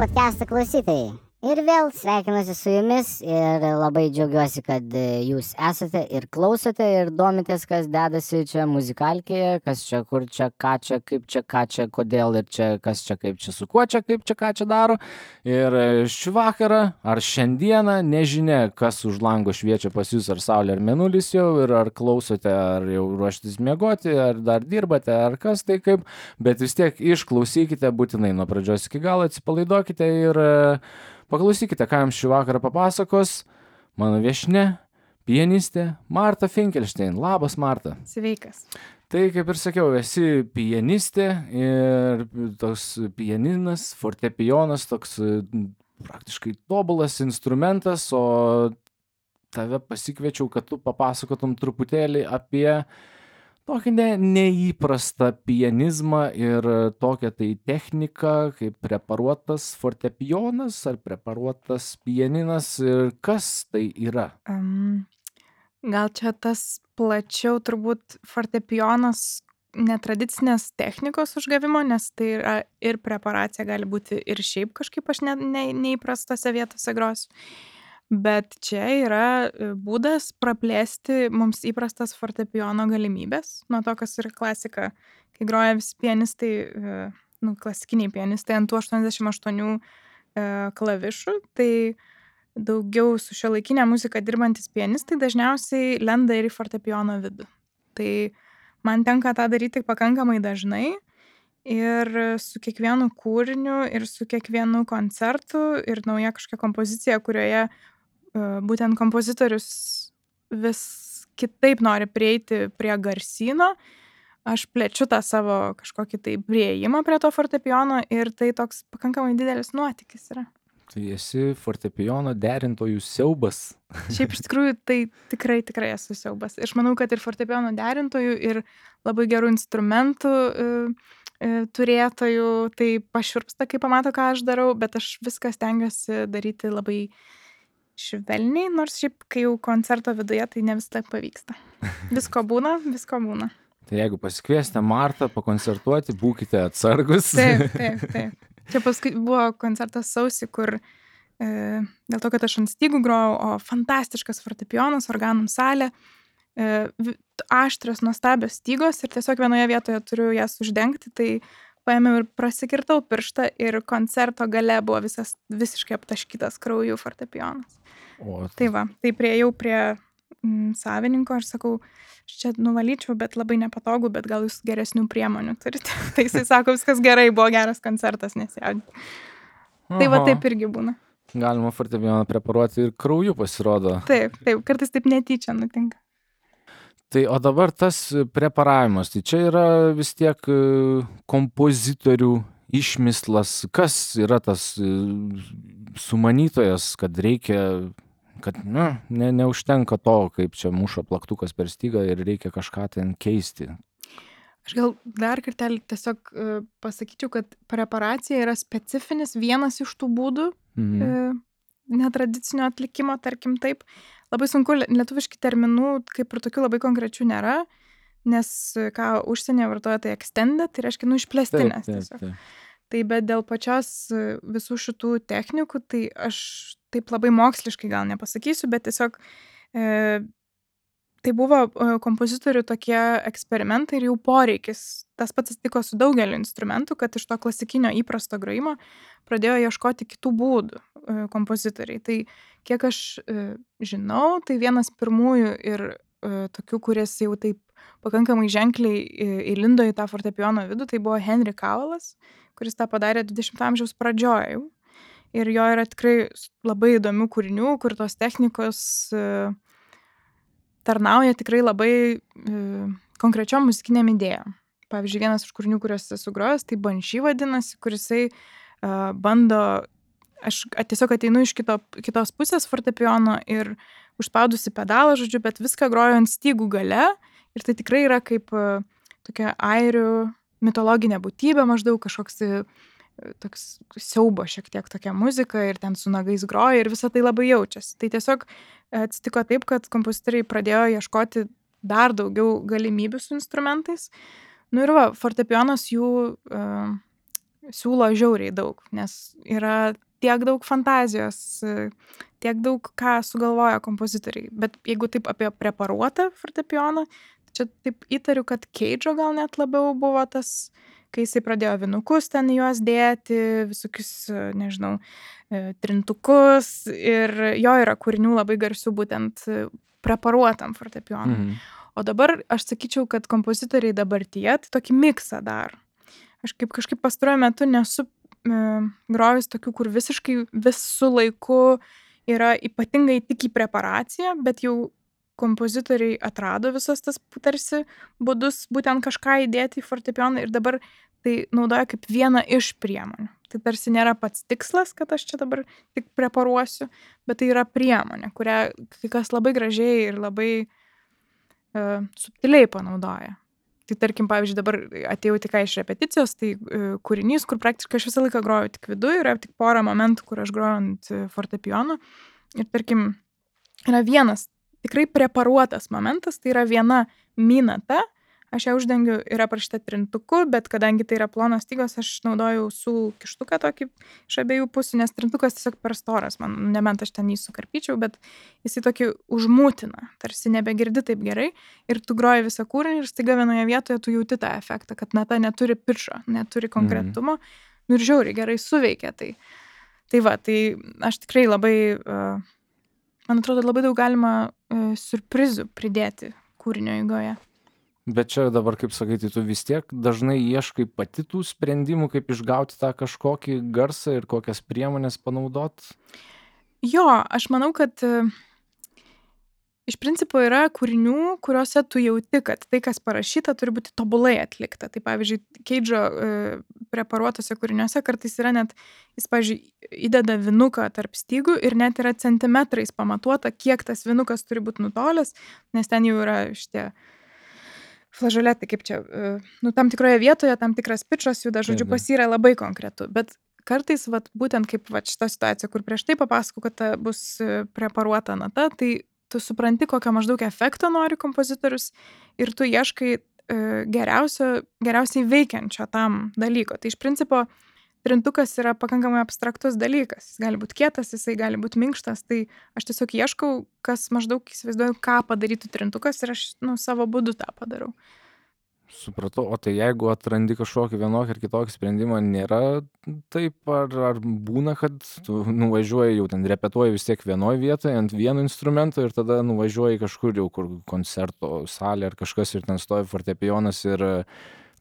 podcast'o klausytojai. Ir vėl sveikinuosi su jumis ir labai džiaugiuosi, kad jūs esate ir klausote ir domitės, kas dedasi čia muzikalkėje, kas čia, kur čia, ką čia, kaip čia, ką čia, kodėl ir čia, kas čia, kaip čia, su kuo čia, kaip čia, ką čia daro. Ir šį vakarą ar šiandieną, nežinia, kas už lango šviečia pas jūs, ar saulė, ar mėnulis jau, ir ar klausote, ar jau ruoštis miegoti, ar dar dirbate, ar kas tai kaip, bet vis tiek išklausykite būtinai nuo pradžios iki galo, atsipalaiduokite ir paklausykite, ką jums šį vakarą papasakos mano viešnia, pianistė Marta Finkelstein. Labas, Marta. Sveikas. Tai, kaip ir sakiau, esi pianistė ir toks pianinas, fortepijonas, toks praktiškai tobulas instrumentas, o tave pasikviečiau, kad tu papasakotum truputėlį apie tokį neįprastą pianizmą ir tokią tai techniką, kaip preparuotas fortepijonas ar preparuotas pianinas ir kas tai yra? Gal čia tas plačiau turbūt fortepijonas netradicinės technikos užgavimo, nes tai yra ir preparacija gali būti ir šiaip kažkaip aš neįprastose vietose grosiu. Bet čia yra būdas praplėsti mums įprastas fortepijono galimybės. Nuo to, kas yra klasika, kai groja visi pianistai, klasikiniai pianistai ant tų 88 klavišų, tai daugiau su šiuolaikinė muzika dirbantis pianistai dažniausiai lenda ir į fortepijono vidų. Tai man tenka tą daryti pakankamai dažnai ir su kiekvienu kūriniu ir su kiekvienu koncertu ir nauja kažkokia kompozicija, kurioje būtent kompozitorius vis kitaip nori prieiti prie garsyno, aš plečiu tą savo kažkokį tai priėjimą prie to fortepijono ir tai toks pakankamai didelis nuotykis yra. Tai esi fortepijono derintojų siaubas. Šiaip iš tikrųjų tai tikrai esu siaubas. Aš manau, kad ir fortepijono derintojų ir labai gerų instrumentų turėtojų tai pašiurpsta, kai pamato, ką aš darau, bet aš viską stengiuosi daryti labai švelniai, nors šiaip, kai jau koncerto viduje, tai ne visada pavyksta. Visko būna. Tai jeigu pasikviesite Martą pakoncertuoti, būkite atsargus. Taip. Čia paskui buvo koncertas sausį, kur dėl to, kad aš ant stygų grojau, o fantastiškas fortepijonas, organum salė, aštrios, nuostabios stygos ir tiesiog vienoje vietoje turiu jas uždengti, tai paėmiau ir prasikirtau pirštą ir koncerto gale buvo visiškai aptaškytas krauju fortepijonas. Tai va, tai priėjau prie savininko ir sakau, aš čia nuvalyčiau, bet labai nepatogu, bet gal jūs geresnių priemonių turite. Tai jisai sako, viskas gerai, buvo geras koncertas, nesijaudinti. Tai va taip irgi būna. Galima fortepijoną preparuoti ir krauju pasirodo. Taip, kartais taip netyčia nutinka. Tai o dabar tas preparavimas, tai čia yra vis tiek kompozitorių išmislas. Kas yra tas sumanytojas, kad reikia, kad neužtenka to, kaip čia muša plaktukas per stygą ir reikia kažką ten keisti? Aš gal dar kartelį tiesiog pasakyčiau, kad preparacija yra specifinis vienas iš tų būdų netradicinio atlikimo, tarkim taip. Labai sunku, lietuviški terminų kaip ir tokių labai konkrečių nėra, nes ką užsienyje vartoja tai extended, tai reiškia išplėstinės tiesiog. Tai bet dėl pačios visų šitų technikų, tai aš taip labai moksliškai gal nepasakysiu, bet tiesiog tai buvo kompozitorių tokie eksperimentai ir jau poreikis. Tas pats atsitiko su daugeliu instrumentų, kad iš to klasikinio įprasto grojimo pradėjo ieškoti kitų būdų kompozitoriai. Tai kiek aš žinau, tai vienas pirmųjų ir tokių, kuris jau taip pakankamai ženkliai įlindo į tą fortepijono vidų, tai buvo Henry Cowellas, kuris tą padarė 20 amžiaus pradžioje jau. Ir jo yra tikrai labai įdomių kūrinių, kur tos technikos tarnauja tikrai labai konkrečiom muzikiniam idėjom. Pavyzdžiui, vienas iš kūrinių, kuriuos esu grojęs, tai Banshee vadinasi, kurisai bando, aš tiesiog ateinu iš kitos pusės fortepijono ir užspaudusi pedalą, žodžiu, bet viską groju ant stygų gale ir tai tikrai yra kaip tokia airių mitologinė būtybė, maždaug kažkoks toks siaubo šiek tiek tokia muzika ir ten su nagais groja ir visą tai labai jaučiasi. Tai tiesiog atsitiko taip, kad kompozitoriai pradėjo ieškoti dar daugiau galimybių su instrumentais. Nu ir va, fortepijonas jų siūlo žiauriai daug, nes yra tiek daug fantazijos, tiek daug ką sugalvoja kompozitoriai. Bet jeigu taip apie preparuotą fortepijoną, čia taip įtariu, kad Keidžo gal net labiau buvo tas, kai jisai pradėjo vinukus ten juos dėti, visokius, nežinau, trintukus, ir jo yra kūrinių labai garsių būtent preparuotam fortepijonui. O dabar aš sakyčiau, kad kompozitoriai dabartyje tai tokį miksą daro. Aš kažkaip pastaruoju metu nesu grojus tokių, kur visiškai visų laiku yra ypatingai tik į preparaciją, bet jau kompozitoriai atrado visas tas tarsi būdus būtent kažką įdėti į fortepijoną ir dabar tai naudoja kaip vieną iš priemonių. Tai tarsi nėra pats tikslas, kad aš čia dabar tik preparuosiu, bet tai yra priemonė, kurią kai kas labai gražiai ir labai subtiliai panaudoja. Tai tarkim, pavyzdžiui, dabar atėjau tik iš repeticijos, tai kūrinys, kur praktiškai aš visą laiką groju tik viduje, yra tik porą momentų, kur aš groju ant fortepijono. Ir tarkim, yra vienas tikrai preparuotas momentas, tai yra viena minata, aš ją uždengiu, yra parašyta trintuku, bet kadangi tai yra plonos stygos, aš naudoju ausų kištuką tokį iš abiejų pusių, nes trintukas tiesiog per storas, man nebent aš ten jį sukarpyčiau, bet jisai tokį užmūtina, tarsi nebegirdi taip gerai ir tu groji visą kūrinį ir staiga vienoje vietoje tu jauti tą efektą, kad nata neturi pičo, neturi konkretumo, nu ir žiauriai gerai suveikia tai. Tai va, tai aš tikrai labai, man atrodo, labai daug galima siurprizų pridėti kūrinio eigoje. Bet čia dabar, kaip sakyti, tu vis tiek dažnai ieškai pati tų sprendimų, kaip išgauti tą kažkokį garsą ir kokias priemonės panaudot? Jo, aš manau, kad iš principo yra kūrinių, kuriuose tu jauti, kad tai, kas parašyta, turi būti tobulai atlikta. Tai pavyzdžiui, Keidžo preparuotose kūriniuose kartais yra net, jis, pavyzdžiui, įdeda vinuką tarp stygų ir net yra centimetrais pamatuota, kiek tas vinukas turi būti nutolęs, nes ten jau yra šitie flažoletai, kaip čia, nu, tam tikroje vietoje, tam tikras pičas juda, žodžiu, pas jį yra labai konkretu. Bet kartais, vat, būtent kaip vat, šita situacija, kur prieš tai papasakau, kad ta bus preparuota nata, tai tu supranti, kokio maždaug efekto nori kompozitorius ir tu ieškai geriausiai veikiančio tam dalyko. Tai iš principo trintukas yra pakankamai abstraktus dalykas. Jis gali būti kietas, jisai gali būti minkštas. Tai aš tiesiog ieškau, kas maždaug įsivaizduoju, ką padarytų trintukas ir aš savo būdu tą padarau. Supratau, o tai jeigu atrandi kažkokį vienokį ar kitokį sprendimą, nėra taip, ar būna, kad tu nuvažiuoji, jau ten repetuoji vis tiek vienoje vietoje ant vieno instrumento ir tada nuvažiuoji kažkur jau, kur koncerto salė ar kažkas ir ten stovi fortepijonas ir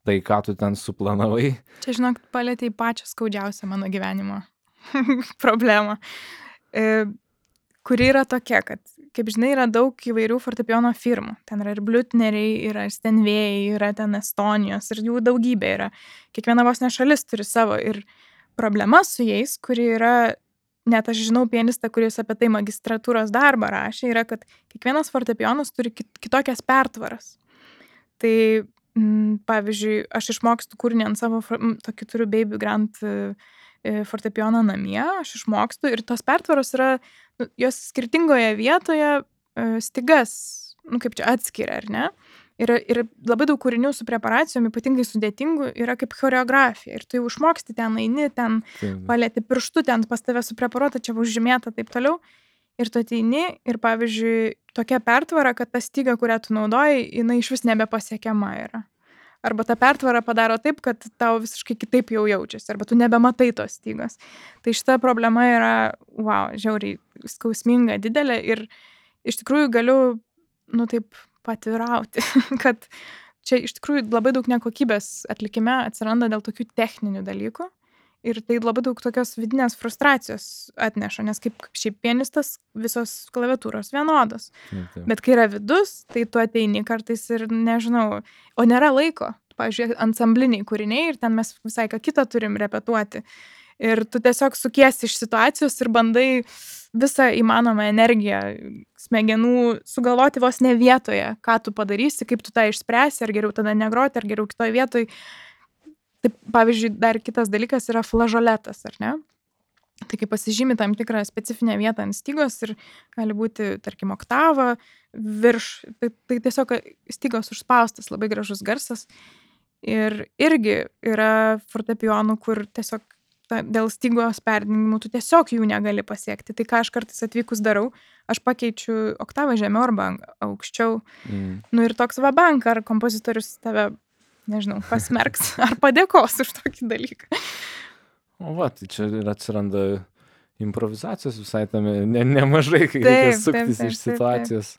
tai, ką tu ten suplanavai. Čia, žinok, palėtei pačią skaudžiausią mano gyvenimo problemą, kuri yra tokia, kad, kaip žinai, yra daug įvairių fortepijono firmų. Ten yra ir Blütneriai, yra Stenvėjai, yra ten Estonijos ir jų daugybė yra. Kiekviena vos ne šalis turi savo ir problema su jais, kuri yra, net aš žinau pianistą, kuris apie tai magistratūros darbą rašė, yra, kad kiekvienas fortepijonas turi kitokias pertvaras. Tai pavyzdžiui, aš išmokstu kūrinį ant savo, tokį turiu Baby Grand fortepijoną namie, aš išmokstu ir tos pertvaros yra, jos skirtingoje vietoje stygas, kaip čia atskiria, ar ne? Ir labai daug kūrinių su preparacijom, ypatingai sudėtingų, yra kaip choreografija. Ir tu jau išmoksti ten, eini, ten palėti pirštu, ten pas tave supreparuota, čia užžymėta, taip toliau. Ir tu ateini ir, pavyzdžiui, tokia pertvara, kad ta styga, kurią tu naudoji, jinai iš vis nebepasiekiama yra. Arba ta pertvara padaro taip, kad tau visiškai kitaip jau jaučiasi, arba tu nebematai tos stygos. Tai šita problema yra, žiauriai skausminga, didelė ir iš tikrųjų galiu, taip patvirauti, kad čia iš tikrųjų labai daug nekokybės atlikime atsiranda dėl tokių techninių dalykų. Ir tai labai daug tokios vidinės frustracijos atneša, nes kaip šiaip pianistas visos klaviatūros vienodos. Bet kai yra vidus, tai tu ateini kartais ir nežinau, o nėra laiko. Pavyzdžiui, ansambliniai kūriniai ir ten mes visai ką kitą turim repetuoti. Ir tu tiesiog sukiesi iš situacijos ir bandai visą įmanomą energiją smegenų sugalvoti vos ne vietoje, ką tu padarysi, kaip tu tą išspręsi, ar geriau tada negroti, ar geriau kitoj vietoj. Taip, pavyzdžiui, dar kitas dalykas yra flažoletas, ar ne? Tai kai pasižymi tam tikrą specifinę vietą ant stygos ir gali būti, tarkim, oktava virš, tai tiesiog stygos užspaustas, labai gražus garsas. Ir irgi yra fortepijonų, kur tiesiog dėl stygos perdengimų tu tiesiog jų negali pasiekti. Tai ką aš kartais atvykus darau, aš pakeičiu oktavą žemiau arba aukščiau. Nu ir toks vabank, ar kompozitorius tave, nežinau, pasmerks, ar padėkos už tokį dalyką. O va, tai čia ir atsiranda improvizacijos visai tame nemažai, kai reikia suktis iš situacijos.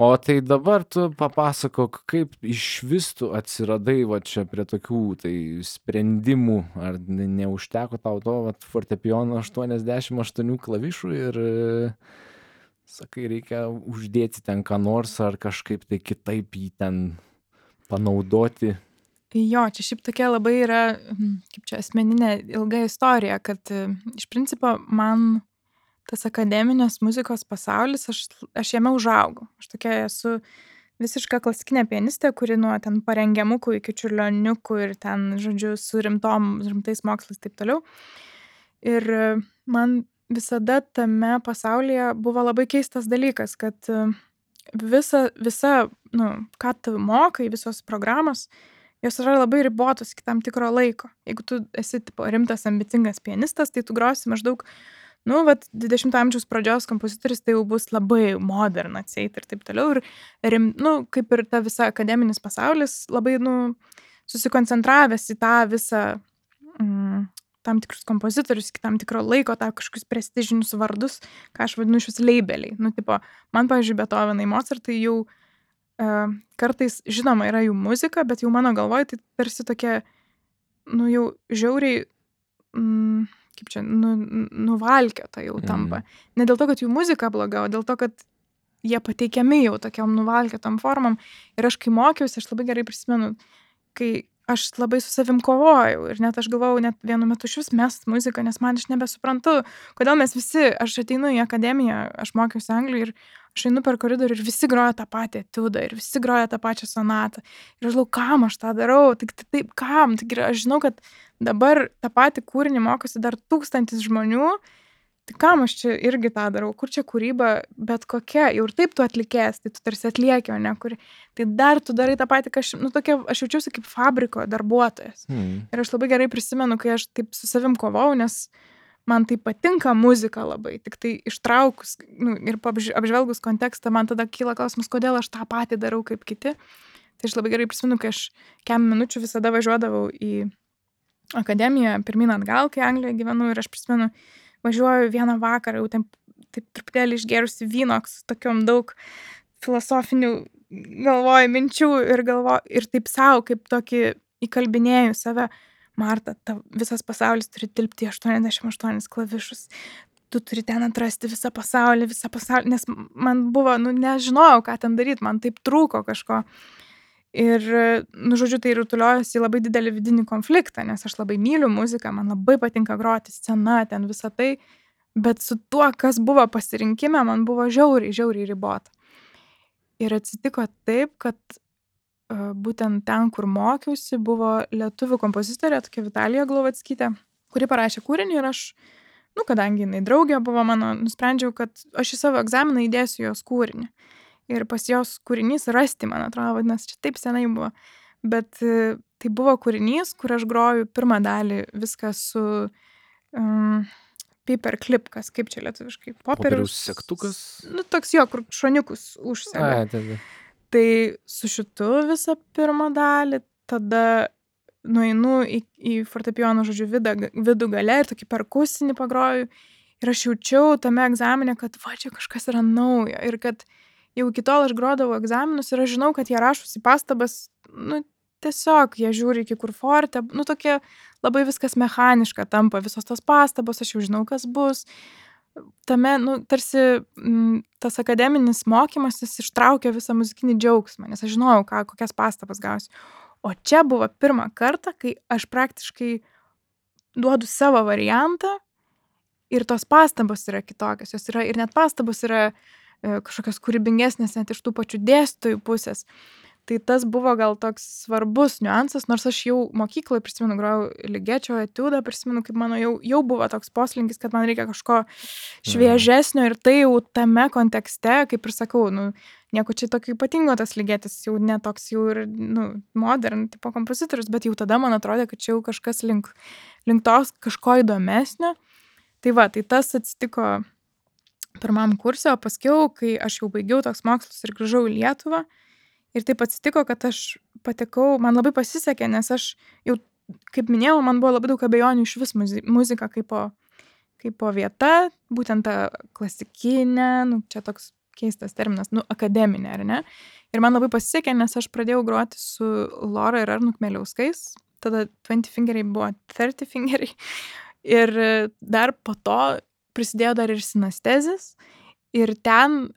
O tai dabar tu papasakok, kaip iš vis tu atsiradai va čia prie tokių tai sprendimų, ar neužteko tau to fortepijono 88 klavišų ir sakai, reikia uždėti ten ką nors, ar kažkaip tai kitaip jį ten panaudoti. Jo, čia šiaip tokia labai yra, kaip čia asmeninė ilga istorija, kad iš principo man tas akademinės muzikos pasaulis, aš jame užaugau. Aš tokia esu visiška klasikinė pianistė, kuri nuo ten parengiamukų iki čiurlioniukų ir ten, žodžiu, su rimtais mokslais taip toliau. Ir man visada tame pasaulyje buvo labai keistas dalykas, kad visa, ką tu mokai, visos programos, jos yra labai ribotos iki tam tikro laiko. Jeigu tu esi rimtas, ambicingas pianistas, tai tu grosi maždaug 20 amžiaus pradžios kompozitorius, tai jau bus labai modern atseit ir taip toliau. Ir kaip ir ta visa akademinis pasaulis, labai, susikoncentravęs į tą visą tam tikrus kompozitorius, iki tam tikro laiko, tą kažkokius prestižinius vardus, ką aš vadinu šius leibeliai. Man, pavyzdžiui, Beethovenai, Mozartai jau kartais, žinoma, yra jų muzika, bet jau mano galvoj tai tarsi tokia, jau žiauriai, kaip čia, nuvalkiota jau tampa. Ne dėl to, kad jų muzika bloga, o dėl to, kad jie pateikiami jau tokiam nuvalkiotam formam. Ir aš, kai mokiausi, aš labai gerai prisimenu, kai aš labai su savim kovojau ir net aš galvojau net vienu metu šis mest muziką, nes man aš nebesuprantu, kodėl mes visi, aš ateinu į akademiją, aš mokiausi Anglijoje ir aš einu per koridorių ir visi groja tą patį etiudą ir visi groja tą pačią sonatą. Ir aš galvoju, kam aš tą darau, taip, kam? Aš žinau, kad dabar tą patį kūrinį mokosi dar 1000 žmonių, tai kam aš čia irgi tą darau, kur čia kūryba, bet kokia, jau ir taip tu atlikės, tai tu tarsi atlieki, o ne kuri. Tai dar tu darai tą patį, aš jaučiausi kaip fabriko darbuotojas. Ir aš labai gerai prisimenu, kai aš taip su savim kovau, nes man tai patinka muzika labai, tik tai ištraukus ir apžvelgus kontekstą, man tada kyla klausimas, kodėl aš tą patį darau kaip kiti. Tai aš labai gerai prisimenu, kai aš kem minučių visada važiuodavau į akademiją, pirmyn atgal, kai Anglijoje gyvenu, ir aš prisimenu, važiuoju vieną vakarą, jau taip truputėlį išgėrusi vyno, su tokiom daug filosofinių galvoju minčių ir taip savo, kaip tokį įkalbinėjau save, Marta, visas pasaulis turi tilpti 88 klavišus. Tu turi ten atrasti visą pasaulį, nes man buvo, nežinojau, ką ten daryti, man taip trūko kažko. Ir, žodžiu, tai rutuliojosi į labai didelį vidinį konfliktą, nes aš labai myliu muziką, man labai patinka groti, scena, ten visą tai, bet su tuo, kas buvo pasirinkime, man buvo žiauriai ribota. Ir atsitiko taip, kad būtent ten, kur mokiausi, buvo lietuvių kompozitorė, tokia Vitalija Glovackytė, kuri parašė kūrinį ir aš, kadangi jinai draugė buvo mano, nusprendžiau, kad aš į savo egzaminą įdėsiu jos kūrinį. Ir pas jos kūrinys Rasti, man atrodo, vadinasi, čia taip senai buvo. Bet tai buvo kūrinys, kur aš groju pirmą dalį viską su paperclip, kaip čia lietuviškai? Popieriaus segtukas? Toks jo, kur šoniukus užsega. Tai su šitu visą pirmą dalį, tada nueinu į fortepijono, žodžiu, vidų gale ir tokį perkusinį pagroju. Ir aš jaučiau tame egzamine, kad čia kažkas yra naujo. Ir kad jau iki tol aš grodavau egzaminus ir aš žinau, kad jie rašosi pastabas, tiesiog jie žiūri iki kur forte, tokie labai viskas mechaniška tampa, visos tos pastabos, aš jau žinau, kas bus. Tame, tarsi tas akademinis mokymas, jis ištraukė visą muzikinį džiaugsmą, nes aš žinojau, kokias pastabas gausiu. O čia buvo pirmą kartą, kai aš praktiškai duodu savo variantą ir tos pastabos yra kitokios, jos yra, ir net pastabos yra kažkokios kūrybingesnės net iš tų pačių dėstytojų pusės. Tai tas buvo gal toks svarbus niuansas, nors aš jau mokykloje prisimenu, grojau Ligečio etiudą, prisimenu, kaip mano jau buvo toks poslinkis, kad man reikia kažko šviežesnio ir tai jau tame kontekste, kaip ir sakau, nieko čia tokio ypatingo tas Ligetis, jau netoks jau ir, modern tipo kompozitorius, bet jau tada man atrodė, kad čia jau kažkas link tos kažko įdomesnio. Tai va, tai tas atsitiko pirmam kurse, o paskiau, kai aš jau baigiau toks mokslus ir grįžau į Lietuvą, ir taip atsitiko, kad aš patekau, man labai pasisekė, nes aš jau, kaip minėjau, man buvo labai daug abejonių iš vis muzika kaip vieta, būtent ta klasikinė, čia toks keistas terminas, akademinė, ar ne? Ir man labai pasisekė, nes aš pradėjau groti su Lora ir Arnu Kmeliauskais, tada 20 fingeriai buvo 30 fingeriai, ir dar po to prisidėjo dar ir sinestezis, ir ten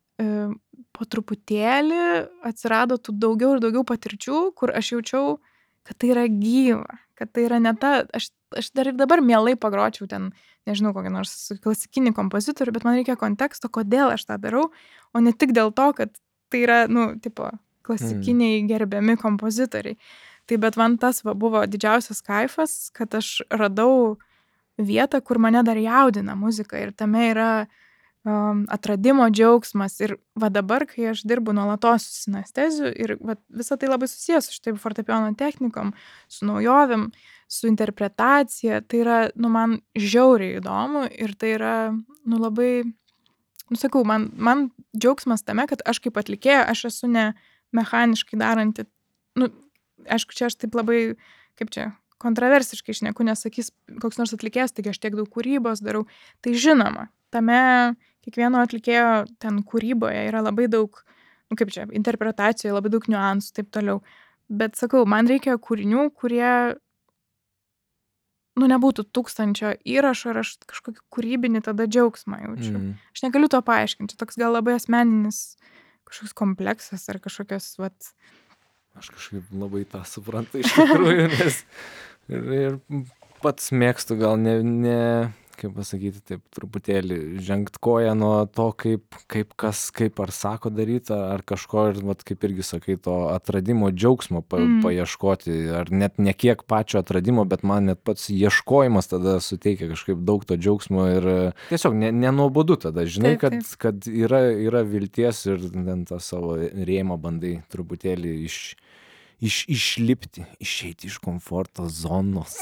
po truputėlį atsirado tų daugiau ir daugiau patirčių, kur aš jaučiau, kad tai yra gyva, kad tai yra ne ta, aš dar ir dabar mielai pagročiau ten, nežinau, kokį nors klasikinį kompozitorių, bet man reikia konteksto, kodėl aš tą darau, o ne tik dėl to, kad tai yra, tipo, klasikiniai gerbiami kompozitoriai. Tai bet man tas buvo didžiausias kaifas, kad aš radau vietą, kur mane dar jaudina muzika ir tame yra atradimo džiaugsmas. Ir va dabar, kai aš dirbu nuolatos su sinesteziu ir va, visą tai labai susijęs su štai fortepijono technikom, su naujovėm, su interpretacija, tai yra, man žiauriai įdomu ir tai yra, labai, sakau, man džiaugsmas tame, kad aš kaip atlikėja, aš esu ne mechaniškai daranti, aišku, čia aš taip labai, kaip čia, kontroversiškai šneku, nesakys koks nors atlikėjas, taigi aš tiek daug kūrybos darau. Tai žinoma, tame kiekvieno atlikėjo ten kūryboje yra labai daug, kaip čia, interpretacijoje, labai daug niuansų, taip toliau. Bet sakau, man reikia kūrinių, kurie, nebūtų 1000 įrašų ir aš kažkokį kūrybinį tada džiaugsmą jaučiu. Aš negaliu to paaiškinti, toks gal labai asmeninis kažkoks kompleksas ar kažkokios, vat. Aš kažkaip labai tą suprantu iš tikrųjų, nes ir pats mėgstu gal ne kaip pasakyti, taip truputėlį žengt koją nuo to, kaip ar sako daryti, ar kažko, ir vat, kaip irgi sakai, to atradimo džiaugsmo paieškoti, ar net ne kiek pačio atradimo, bet man net pats ieškojimas tada suteikia kažkaip daug to džiaugsmo ir tiesiog nenuobodu tada, žinai, kad yra vilties ir ten tą savo rėmą bandai truputėlį išlipti, išeiti iš komforto zonos.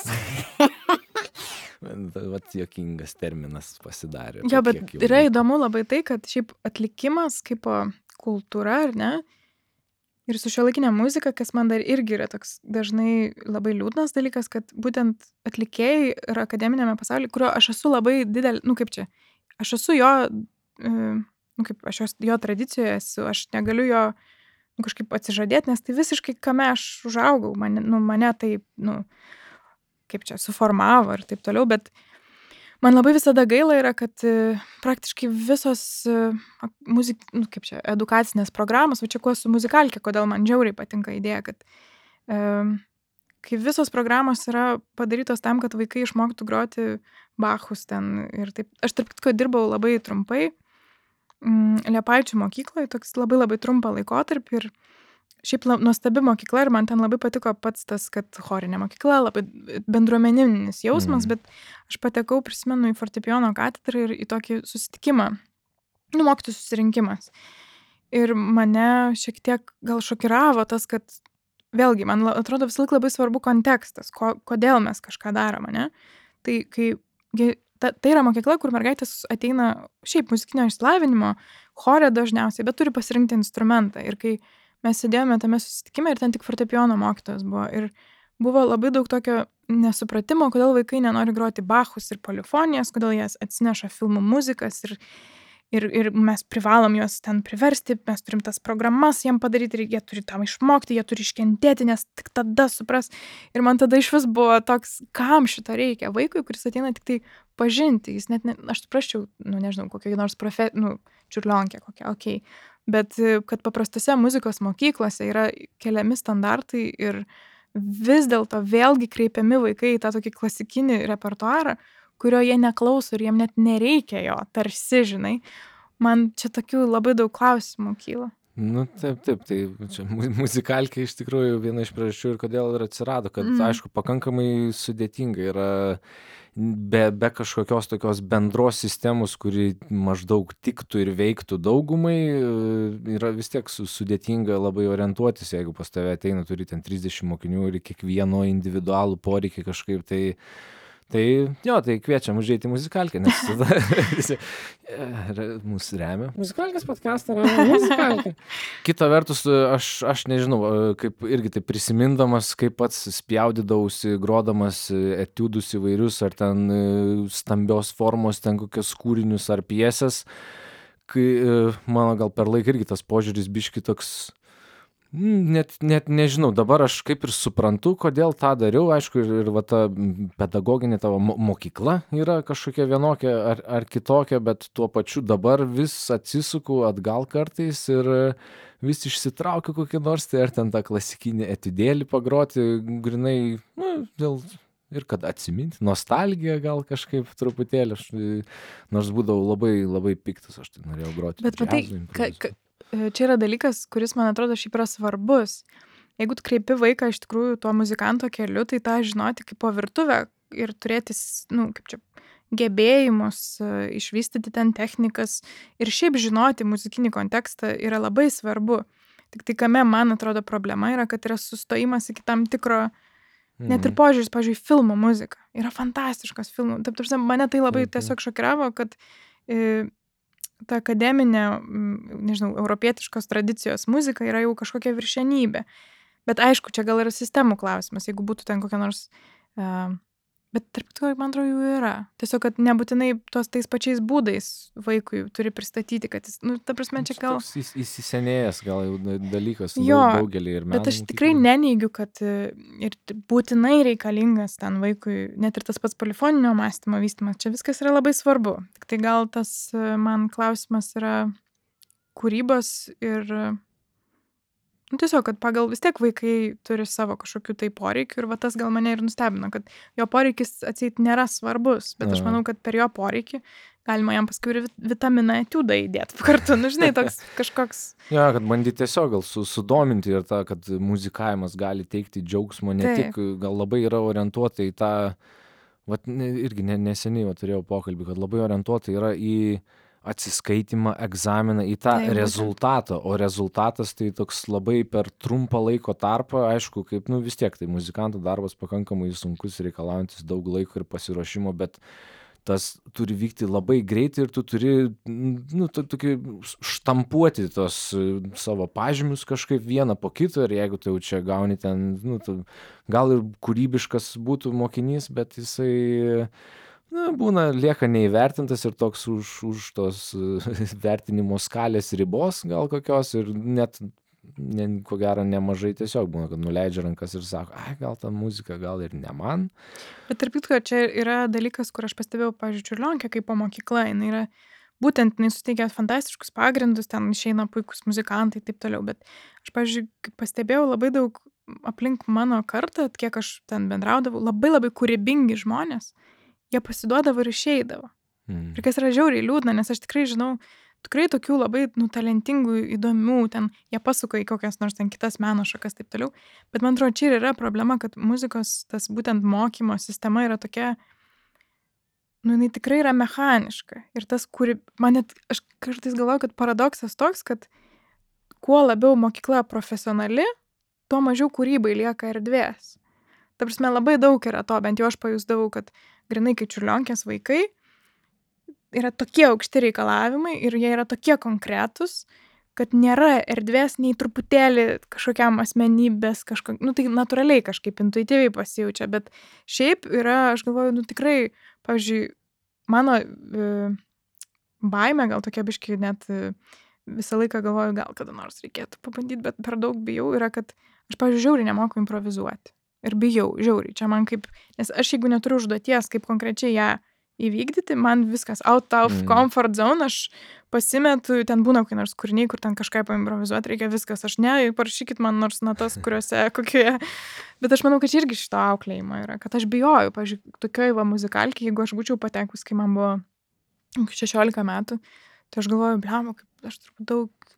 Vat juokingas terminas pasidarė. Jo, bet yra įdomu labai tai, kad šiaip atlikimas kaip kultūra, ar ne? Ir su šiuolaikinė muzika, kas man dar irgi yra toks dažnai labai liūdnas dalykas, kad būtent atlikėjai ir akademinėme pasaulyje, kurio aš esu labai didelė, kaip čia, aš esu jo, aš jo tradicijoje esu, aš negaliu jo kažkaip atsižadėti, nes tai visiškai kame aš užaugau, mane tai, kaip čia, suformavo ir taip toliau, bet man labai visada gaila yra, kad praktiškai visos edukacinės programos, va čia kuo su muzikalkė, kodėl man žiauriai patinka idėja, kad kai visos programos yra padarytos tam, kad vaikai išmoktų groti Bachus ten ir taip. Aš tarp kitko dirbau labai trumpai Liepaičių mokykloje, toks labai trumpą laikotarpį ir šiaip nuostabi mokykla ir man ten labai patiko pats tas, kad chorinė mokykla, labai bendruomeninis jausmas, bet aš patekau, prisimenu, į fortepijono katedrą ir į tokį susitikimą, mokytojų susirinkimas. Ir mane šiek tiek gal šokiravo tas, kad vėlgi, man atrodo visą laiką labai svarbu kontekstas, kodėl mes kažką darome, ne? Tai yra mokykla, kur mergaitės ateina šiaip muzikinio išsilavinimo, chore dažniausiai, bet turi pasirinkti instrumentą. Ir kai mes sėdėjome tame susitikime ir ten tik fortepijono mokytojas buvo. Ir buvo labai daug tokio nesupratimo, kodėl vaikai nenori groti Bachus ir polifonijas, kodėl jie atsineša filmų muzikas ir mes privalom juos ten priversti, mes turim tas programas jiem padaryti ir jie turi tam išmokti, jie turi iškentėti, nes tik tada supras. Ir man tada iš vis buvo toks, kam šito reikia vaikui, kuris ateina tik tai pažinti. Jis net, aš suprasčiau, nežinau, kokia nors čiurlionkė kokia, okei. Bet kad paprastose muzikos mokyklose yra keliami standartai ir vis dėlto vėlgi kreipiami vaikai į tą tokį klasikinį repertuarą, kurio jie neklauso ir jiem net nereikia jo, tarsi, žinai. Man čia tokių labai daug klausimų kyla. Nu, taip, tai čia muzikalkė iš tikrųjų viena iš priežasčių ir kodėl ir atsirado, kad, aišku, pakankamai sudėtinga yra be kažkokios tokios bendros sistemos, kuri maždaug tiktų ir veiktų daugumai, yra vis tiek sudėtinga labai orientuotis, jeigu pas tave ateina, turi ten 30 mokinių ir kiekvieno individualų poreikį kažkaip tai jo, tai kviečiam užeiti į muzikalkę, nes tada visi mūsų remia. Muzikalkės podcastą remia muzikalkę. Kita vertus, aš nežinau, kaip irgi tai prisimindamas, kaip pats spjaudydavausi, grodamas etiudus įvairius, ar ten stambios formos, ten kokios kūrinius ar pjesės, kai mano gal per laiką irgi tas požiūris biški toks. Net nežinau, dabar aš kaip ir suprantu, kodėl tą dariau, aišku, ir va ta pedagoginė tavo mokykla yra kažkokia vienokia ar kitokia, bet tuo pačiu dabar vis atsisuku atgal kartais ir vis išsitraukiu kokį nors, tai ar ten tą klasikinį etudėlį pagroti, grinai, dėl ir kad atsiminti, nostalgija gal kažkaip truputėlį, nors būdavau labai, labai piktas, aš tai norėjau groti. Bet matai, čia yra dalykas, kuris, man atrodo, šiaip yra svarbus. Jeigu tu kreipi vaiką iš tikrųjų tuo muzikanto keliu, tai tą žinoti kaip po virtuvę ir turėti, kaip čia, gebėjimus, išvystyti ten technikas ir šiaip žinoti muzikinį kontekstą yra labai svarbu. Tik tai kame, man atrodo, problema yra, kad yra sustojimas iki tam tikro, net ir požiūris, pavyzdžiui, filmų muzika. Yra fantastiškas filmų. Taip, mane tai labai tiesiog šokiravo, kad ta akademinė, nežinau, europietiškos tradicijos muzika yra jau kažkokia viršenybė. Bet aišku, čia gal yra sistemų klausimas, jeigu būtų ten kokia nors, bet tarp to, man atrodo, jų yra. Tiesiog, kad nebūtinai tais pačiais būdais vaikui turi pristatyti, kad jis, ta prasme, čia gal įsisenėjęs gal jau dalykas daugelį ir menų. Bet aš tikrai neneigiu, kad ir būtinai reikalingas ten vaikui, net ir tas pats polifoninio mąstymo vystymas, čia viskas yra labai svarbu. Tik tai gal tas man klausimas yra kūrybos ir tiesiog, kad pagal vis tiek vaikai turi savo kažkokių tai poreikių ir va tas gal mane ir nustebino, kad jo poreikis atseit nėra svarbus, bet aš manau, kad per jo poreikį galima jam paskui ir vitaminą etiudą įdėti kartu, žinai, toks kažkoks. Ja, kad bandyti tiesiog gal sudominti ir tą, kad muzikavimas gali teikti džiaugsmo, ne tik, gal labai yra orientuota į tą, irgi neseniai turėjau pokalbį, kad labai orientuota yra į atsiskaitimą, egzaminą, į tą rezultatą, o rezultatas tai toks labai per trumpą laiko tarpą, aišku, kaip, vis tiek, tai muzikanto darbas pakankamai sunkus, reikalaujantis daug laiko ir pasiruošimo, bet tas turi vykti labai greitai ir tu turi, tokį štampuoti tos savo pažymius kažkaip vieną po kito ir jeigu tu jau čia gauni ten, gal ir kūrybiškas būtų mokinys, bet jisai būna lieka neįvertintas ir toks už tos vertinimo skalės ribos gal kokios ir net ko gero nemažai tiesiog būna, kad nuleidžia rankas ir sako, gal ta muzika, gal ir ne man. Bet tarp kitko, čia yra dalykas, kur aš pastebėjau, pavyzdžiui, Čiurlionkę kaip po mokykla, jinai suteikia fantastiškus pagrindus, ten išeina puikus muzikantai ir taip toliau, bet aš, pavyzdžiui, pastebėjau labai daug aplink mano kartą, kiek aš ten bendraudavau, labai labai kūrybingi žmonės, jie pasiduodavo ir išeidavo. Ir kas yra žiauriai liūdna, nes aš tikrai žinau, tikrai tokių labai talentingų, įdomių, ten jie pasuka į kokias nors ten kitas meno šakas taip toliau, bet man atrodo, čia ir yra problema, kad muzikos tas būtent mokymo sistema yra tokia, jinai tikrai yra mechaniška ir tas, aš kartais galvoju, kad paradoksas toks, kad kuo labiau mokykla profesionali, tuo mažiau kūrybai lieka erdvės. Ta prasme, labai daug yra to, bent jau aš pajusdavau, kad grinai kaip Čiurlionkės vaikai yra tokie aukšti reikalavimai ir jie yra tokie konkretūs, kad nėra erdvės nei truputėlį kažkokiam asmenybės, tai natūraliai kažkaip intuityviai pasijaučia, bet šiaip yra, aš galvoju, tikrai, pavyzdžiui, mano baimė, gal tokia biški net visą laiką galvoju, gal kada nors reikėtų pabandyti, bet per daug bijau, yra, kad aš, pavyzdžiui, žiauriai nemoku improvizuoti. Ir bijau, žiauriai, čia man kaip, nes aš jeigu neturiu užduoties, kaip konkrečiai ją įvykdyti, man viskas out of comfort zone, aš pasimetu, ten būna kokie nors kūriniai, kur ten kažką paimprovizuoti, reikia viskas, aš parašykit man nors natas, kuriuose kokioje, bet aš manau, kad čia irgi šito auklėjimo yra, kad aš bijoju, pavyzdžiui, tokioj muzikalkėj, jeigu aš būčiau patekus, kai man buvo 16 metų, Tai aš galvoju, bliamba, kaip aš turbūt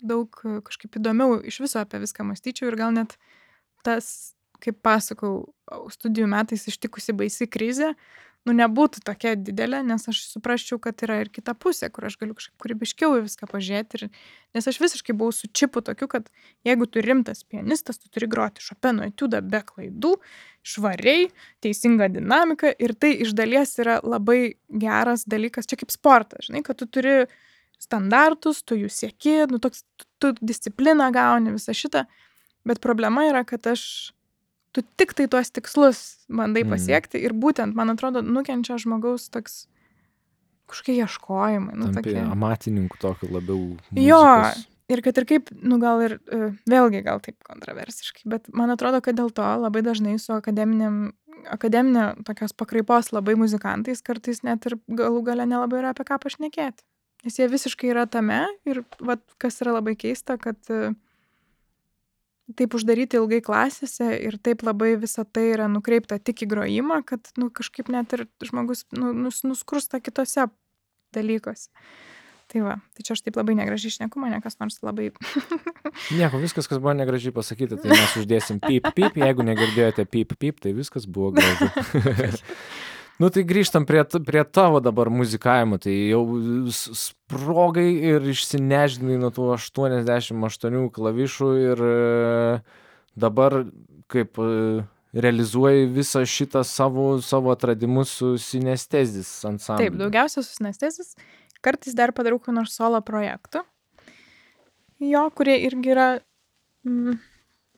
daug kažkaip įdomiau iš viso apie viską mąstyčiau ir gal net tas, kaip pasakau, studijų metais ištikusi baisi krizė, nebūtų tokia didelė, nes aš suprasčiau, kad yra ir kita pusė, kur aš galiu kažkaip kūrybiškiau į viską pažiūrėti. Nes aš visiškai buvau su čipu tokiu, kad jeigu tu rimtas pianistas, tu turi groti Šopeno etiudą be klaidų, švariai, teisinga dinamika ir tai iš dalies yra labai geras dalykas, čia kaip sportas, žinai, kad tu turi standartus, tu jų sieki, toks, tu discipliną gauni, visą šitą, bet problema yra, kad tu tik tai tuos tikslus bandai pasiekti ir būtent, man atrodo, nukenčia žmogaus toks kažkokie ieškojimai. Tampi amatininkų tokiu labiau muzikos. Jo, ir kad ir kaip, gal ir vėlgi gal taip kontroversiškai, bet man atrodo, kad dėl to labai dažnai su akademinė tokios pakraipos labai muzikantais kartais net ir galų gale nelabai yra apie ką pašnekėti. Nes jie visiškai yra tame ir kas yra labai keista, kad taip uždaryti ilgai klasėse ir taip labai visa tai yra nukreipta tik į grojimą, kad kažkaip net ir žmogus nuskursta kitose dalykuose. Tai tai čia aš taip labai negražiai šneku, mane kas nors labai... Nieko, viskas, kas buvo negražiai pasakyti, tai mes uždėsim pip, jeigu negirdėjote pip, tai viskas buvo gražu. Tai grįžtam prie tavo dabar muzikavimo, tai jau sprogai ir išsineždinai nuo tų 88 klavišų ir dabar kaip realizuoji visą šitą savo atradimus su Synestezis ansambliu. Taip, daugiausia su Synestezis, kartais dar padarau kokį nors solo projektų, kurie irgi yra,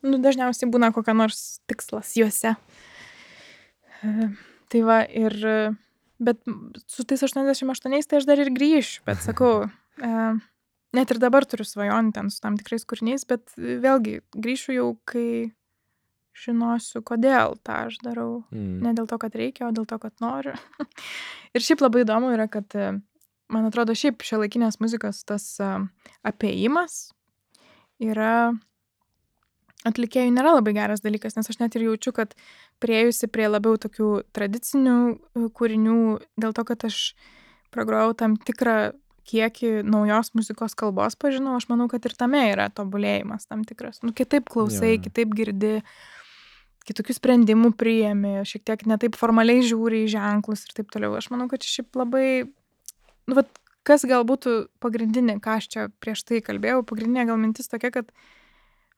dažniausiai būna kokia nors tikslas juose. Tai bet su tais 88 tai aš dar ir grįšiu, bet sakau, net ir dabar turiu svajonį ten su tam tikrais kūriniais, bet vėlgi grįšiu jau, kai žinosiu, kodėl tą aš darau. Ne dėl to, kad reikia, o dėl to, kad noriu. Ir šiaip labai įdomu yra, kad, man atrodo, šiaip šiuolaikinės muzikos tas apėjimas yra atlikėjų nėra labai geras dalykas, nes aš net ir jaučiu, kad priėjusi prie labiau tokių tradicinių kūrinių, dėl to, kad aš pragrojau tam tikrą kiekį naujos muzikos kalbos pažinau, aš manau, kad ir tame yra tobulėjimas tam tikras. Kitaip klausai, kitaip girdi, kitokių sprendimų priėmi, šiek tiek netaip formaliai žiūri į ženklus ir taip toliau. Aš manau, kad šiaip labai, kas gal būtų pagrindinė, ką aš čia prieš tai kalbėjau, pagrindinė gal mintis tokia, kad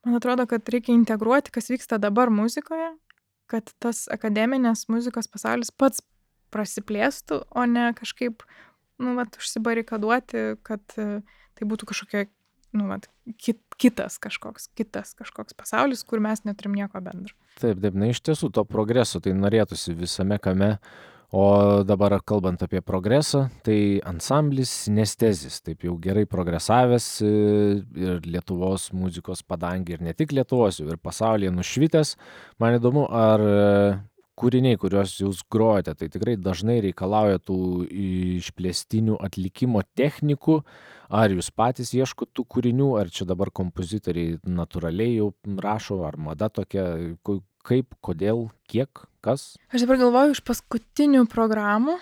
man atrodo, kad reikia integruoti, kas vyksta dabar muzikoje, kad tas akademinės muzikos pasaulis pats prasiplėstų, o ne kažkaip, užsibarikaduoti, kad tai būtų kažkokia, kitas kažkoks pasaulis, kur mes neturim nieko bendro. Taip, iš tiesų to progreso tai norėtųsi visame kame. O dabar kalbant apie progresą, tai ansamblis Synestezis, taip jau gerai progresavęs ir Lietuvos muzikos padangė, ir ne tik Lietuvos, ir pasaulyje nušvitęs. Man įdomu, ar kūriniai, kuriuos jūs grojate, tai tikrai dažnai reikalauja tų išplėstinių atlikimo technikų, ar jūs patys ieškot tų kūrinių, ar čia dabar kompozitoriai natūraliai jau rašo, ar mada tokia, kaip, kodėl, kiek, kas? Aš dabar galvoju iš paskutinių programų,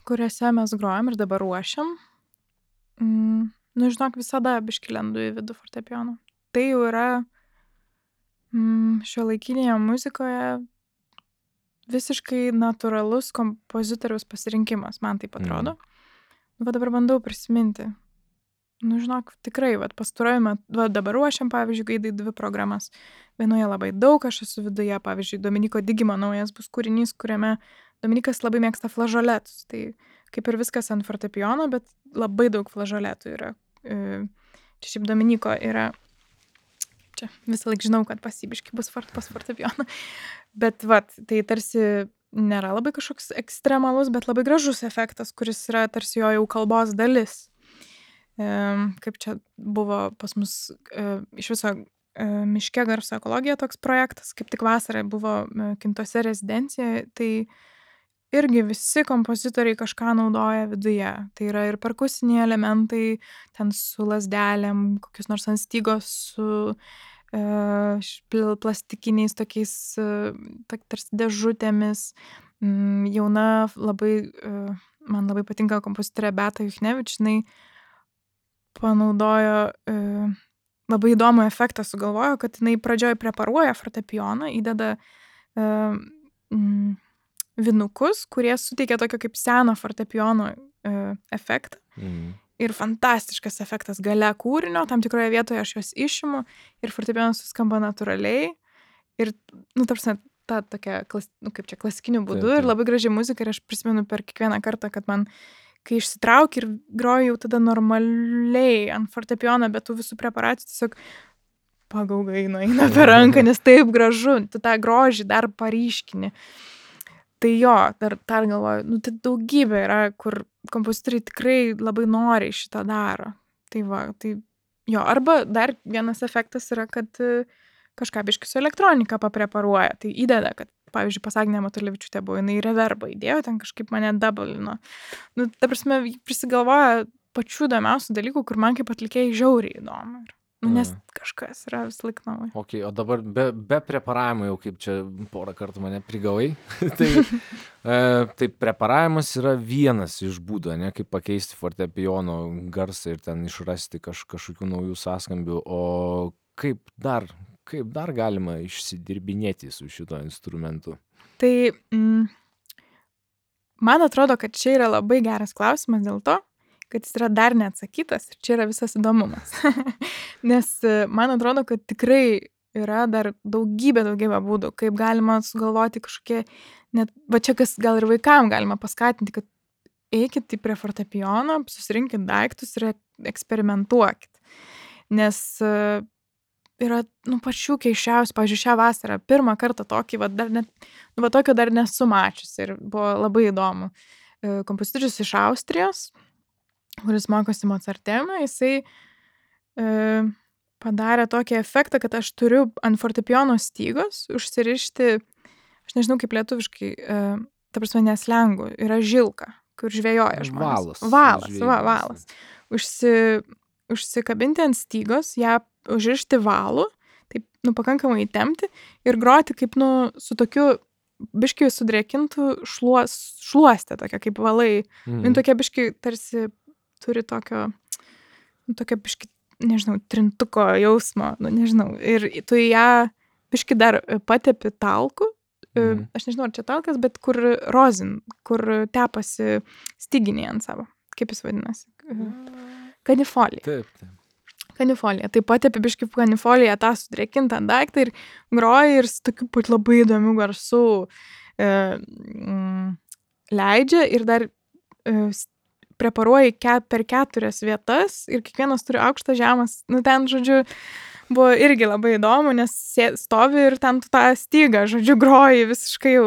kuriuose mes grojam ir dabar ruošiam. Žinok, visada biškį lendu į vidų fortepijono. Tai jau yra šiuolaikinėje muzikoje visiškai natūralus kompozitoriaus pasirinkimas, man taip atrodo. Dabar bandau prisiminti. Žinok, tikrai, pastaruoju metu, dabar ruošiam, pavyzdžiui, Gaidai 2 programas. Vienoje labai daug, aš esu viduje, pavyzdžiui, Dominiko Digimo naujas bus kūrinys, kuriame Dominikas labai mėgsta flažoletus. Tai kaip ir viskas ant fortepijono, bet labai daug flažoletų yra. Čia šiaip Dominiko yra, čia visą laik žinau, kad pasibiškai bus pas fortepijoną. Bet tai tarsi nėra labai kažkoks ekstremalus, bet labai gražus efektas, kuris yra tarsi jo jau kalbos dalis. Kaip čia buvo pas mus iš viso miške garso ekologija toks projektas, kaip tik vasarą buvo Kintuose rezidencijoje, tai irgi visi kompozitoriai kažką naudoja viduje. Tai yra ir perkusiniai elementai, ten su lazdelėm, kokius nors ant stygos su plastikiniais tokiais tarsi dėžutėmis. Jauna labai, man labai patinka kompozitorė Beata Juchnevič, jinai panaudojo labai įdomų efektą sugalvojo, kad jinai pradžioj preparuoja fortepijoną, įdeda vinukus, kurie suteikia tokio kaip seno fortepijono efektą. Ir fantastiškas efektas gale kūrinio, tam tikroje vietoje aš juos išimu ir fortepijonas suskamba natūraliai. Ir, tarsi, ta tokia, kaip čia, klasikiniu būdu ir labai gražiai muzika. Ir aš prisimenu per kiekvieną kartą, kad man, kai išsitraukiu ir groju jau tada normaliai ant fortepijono, bet tų visų preparacijų tiesiog pagaugai eina per ranką, nes taip gražu, tu tą grožį dar paryškini. Tai jo, dar galvoju, tai daugybė yra, kur kompozitoriai tikrai labai noriai šitą daro. Tai va, tai jo, arba dar vienas efektas yra, kad kažką biškį su elektronika papreparuoja. Tai įdeda, kad, pavyzdžiui, pas Agnę Matulevičiūtę buvo, jinai reverbą įdėjo, ten kažkaip mane doublino. Ta prasme, prisigalvoja pačių įdomiausių dalykų, kur man kaip atlikėjai žiauriai įdomu. Nes kažkas yra vis laik naujo. Ok, o dabar be preparavimo jau kaip čia porą kartų mane prigavai. Tai preparavimas yra vienas iš būdų, ne, kaip pakeisti fortepijono garsą ir ten išrasti kažkokių naujų sąskambių. O kaip dar galima išsidirbinėti su šito instrumentu? Tai man atrodo, kad čia yra labai geras klausimas dėl to, kad jis yra dar neatsakytas ir čia yra visas įdomumas. Nes man atrodo, kad tikrai yra dar daugybė būdų, kaip galima sugalvoti kažkokie, net, va čia kas gal ir vaikam galima paskatinti, kad eikit prie fortepijono, susirinkit daiktus ir eksperimentuokit. Nes yra, pačių keiščiausių, pavyzdžiui, šią vasarą, pirmą kartą tokį, tokio dar nesu mačiusi ir buvo labai įdomu. Kompozitorius iš Austrijos, kuris mokosi Mozartemą, jisai padarė tokį efektą, kad aš turiu ant fortepijono stygos užsirišti, aš nežinau kaip lietuviškai, ta prasme neslengu, yra žilka, kur žvejoja žmonės. Valas. Užsikabinti ant stygos, ją užrišti valu, taip, pakankamai įtempti ir groti kaip, su tokiu biškiai sudrėkintų šluostę, tokia kaip valai. Tokia biškiai tarsi turi tokio biški, nežinau, trintuko jausmo, nežinau. Ir tu ją biški dar patepi talku, aš nežinau, ar čia talkas, bet kur rozin, kur tepasi styginiai ant savo. Kaip jis vadinasi? Kanifolija. Taip. Kanifolija. Tai patepi biški kanifoliją tą sudrėkintą daiktą ir groji ir su tokiu pat labai įdomių garsų leidžia ir dar preparuoji per 4 vietas ir kiekvienas turi aukštas žemas. Ten, žodžiu, buvo irgi labai įdomu, nes stovi ir ten tu tą stygą, žodžiu, groji visiškai jau,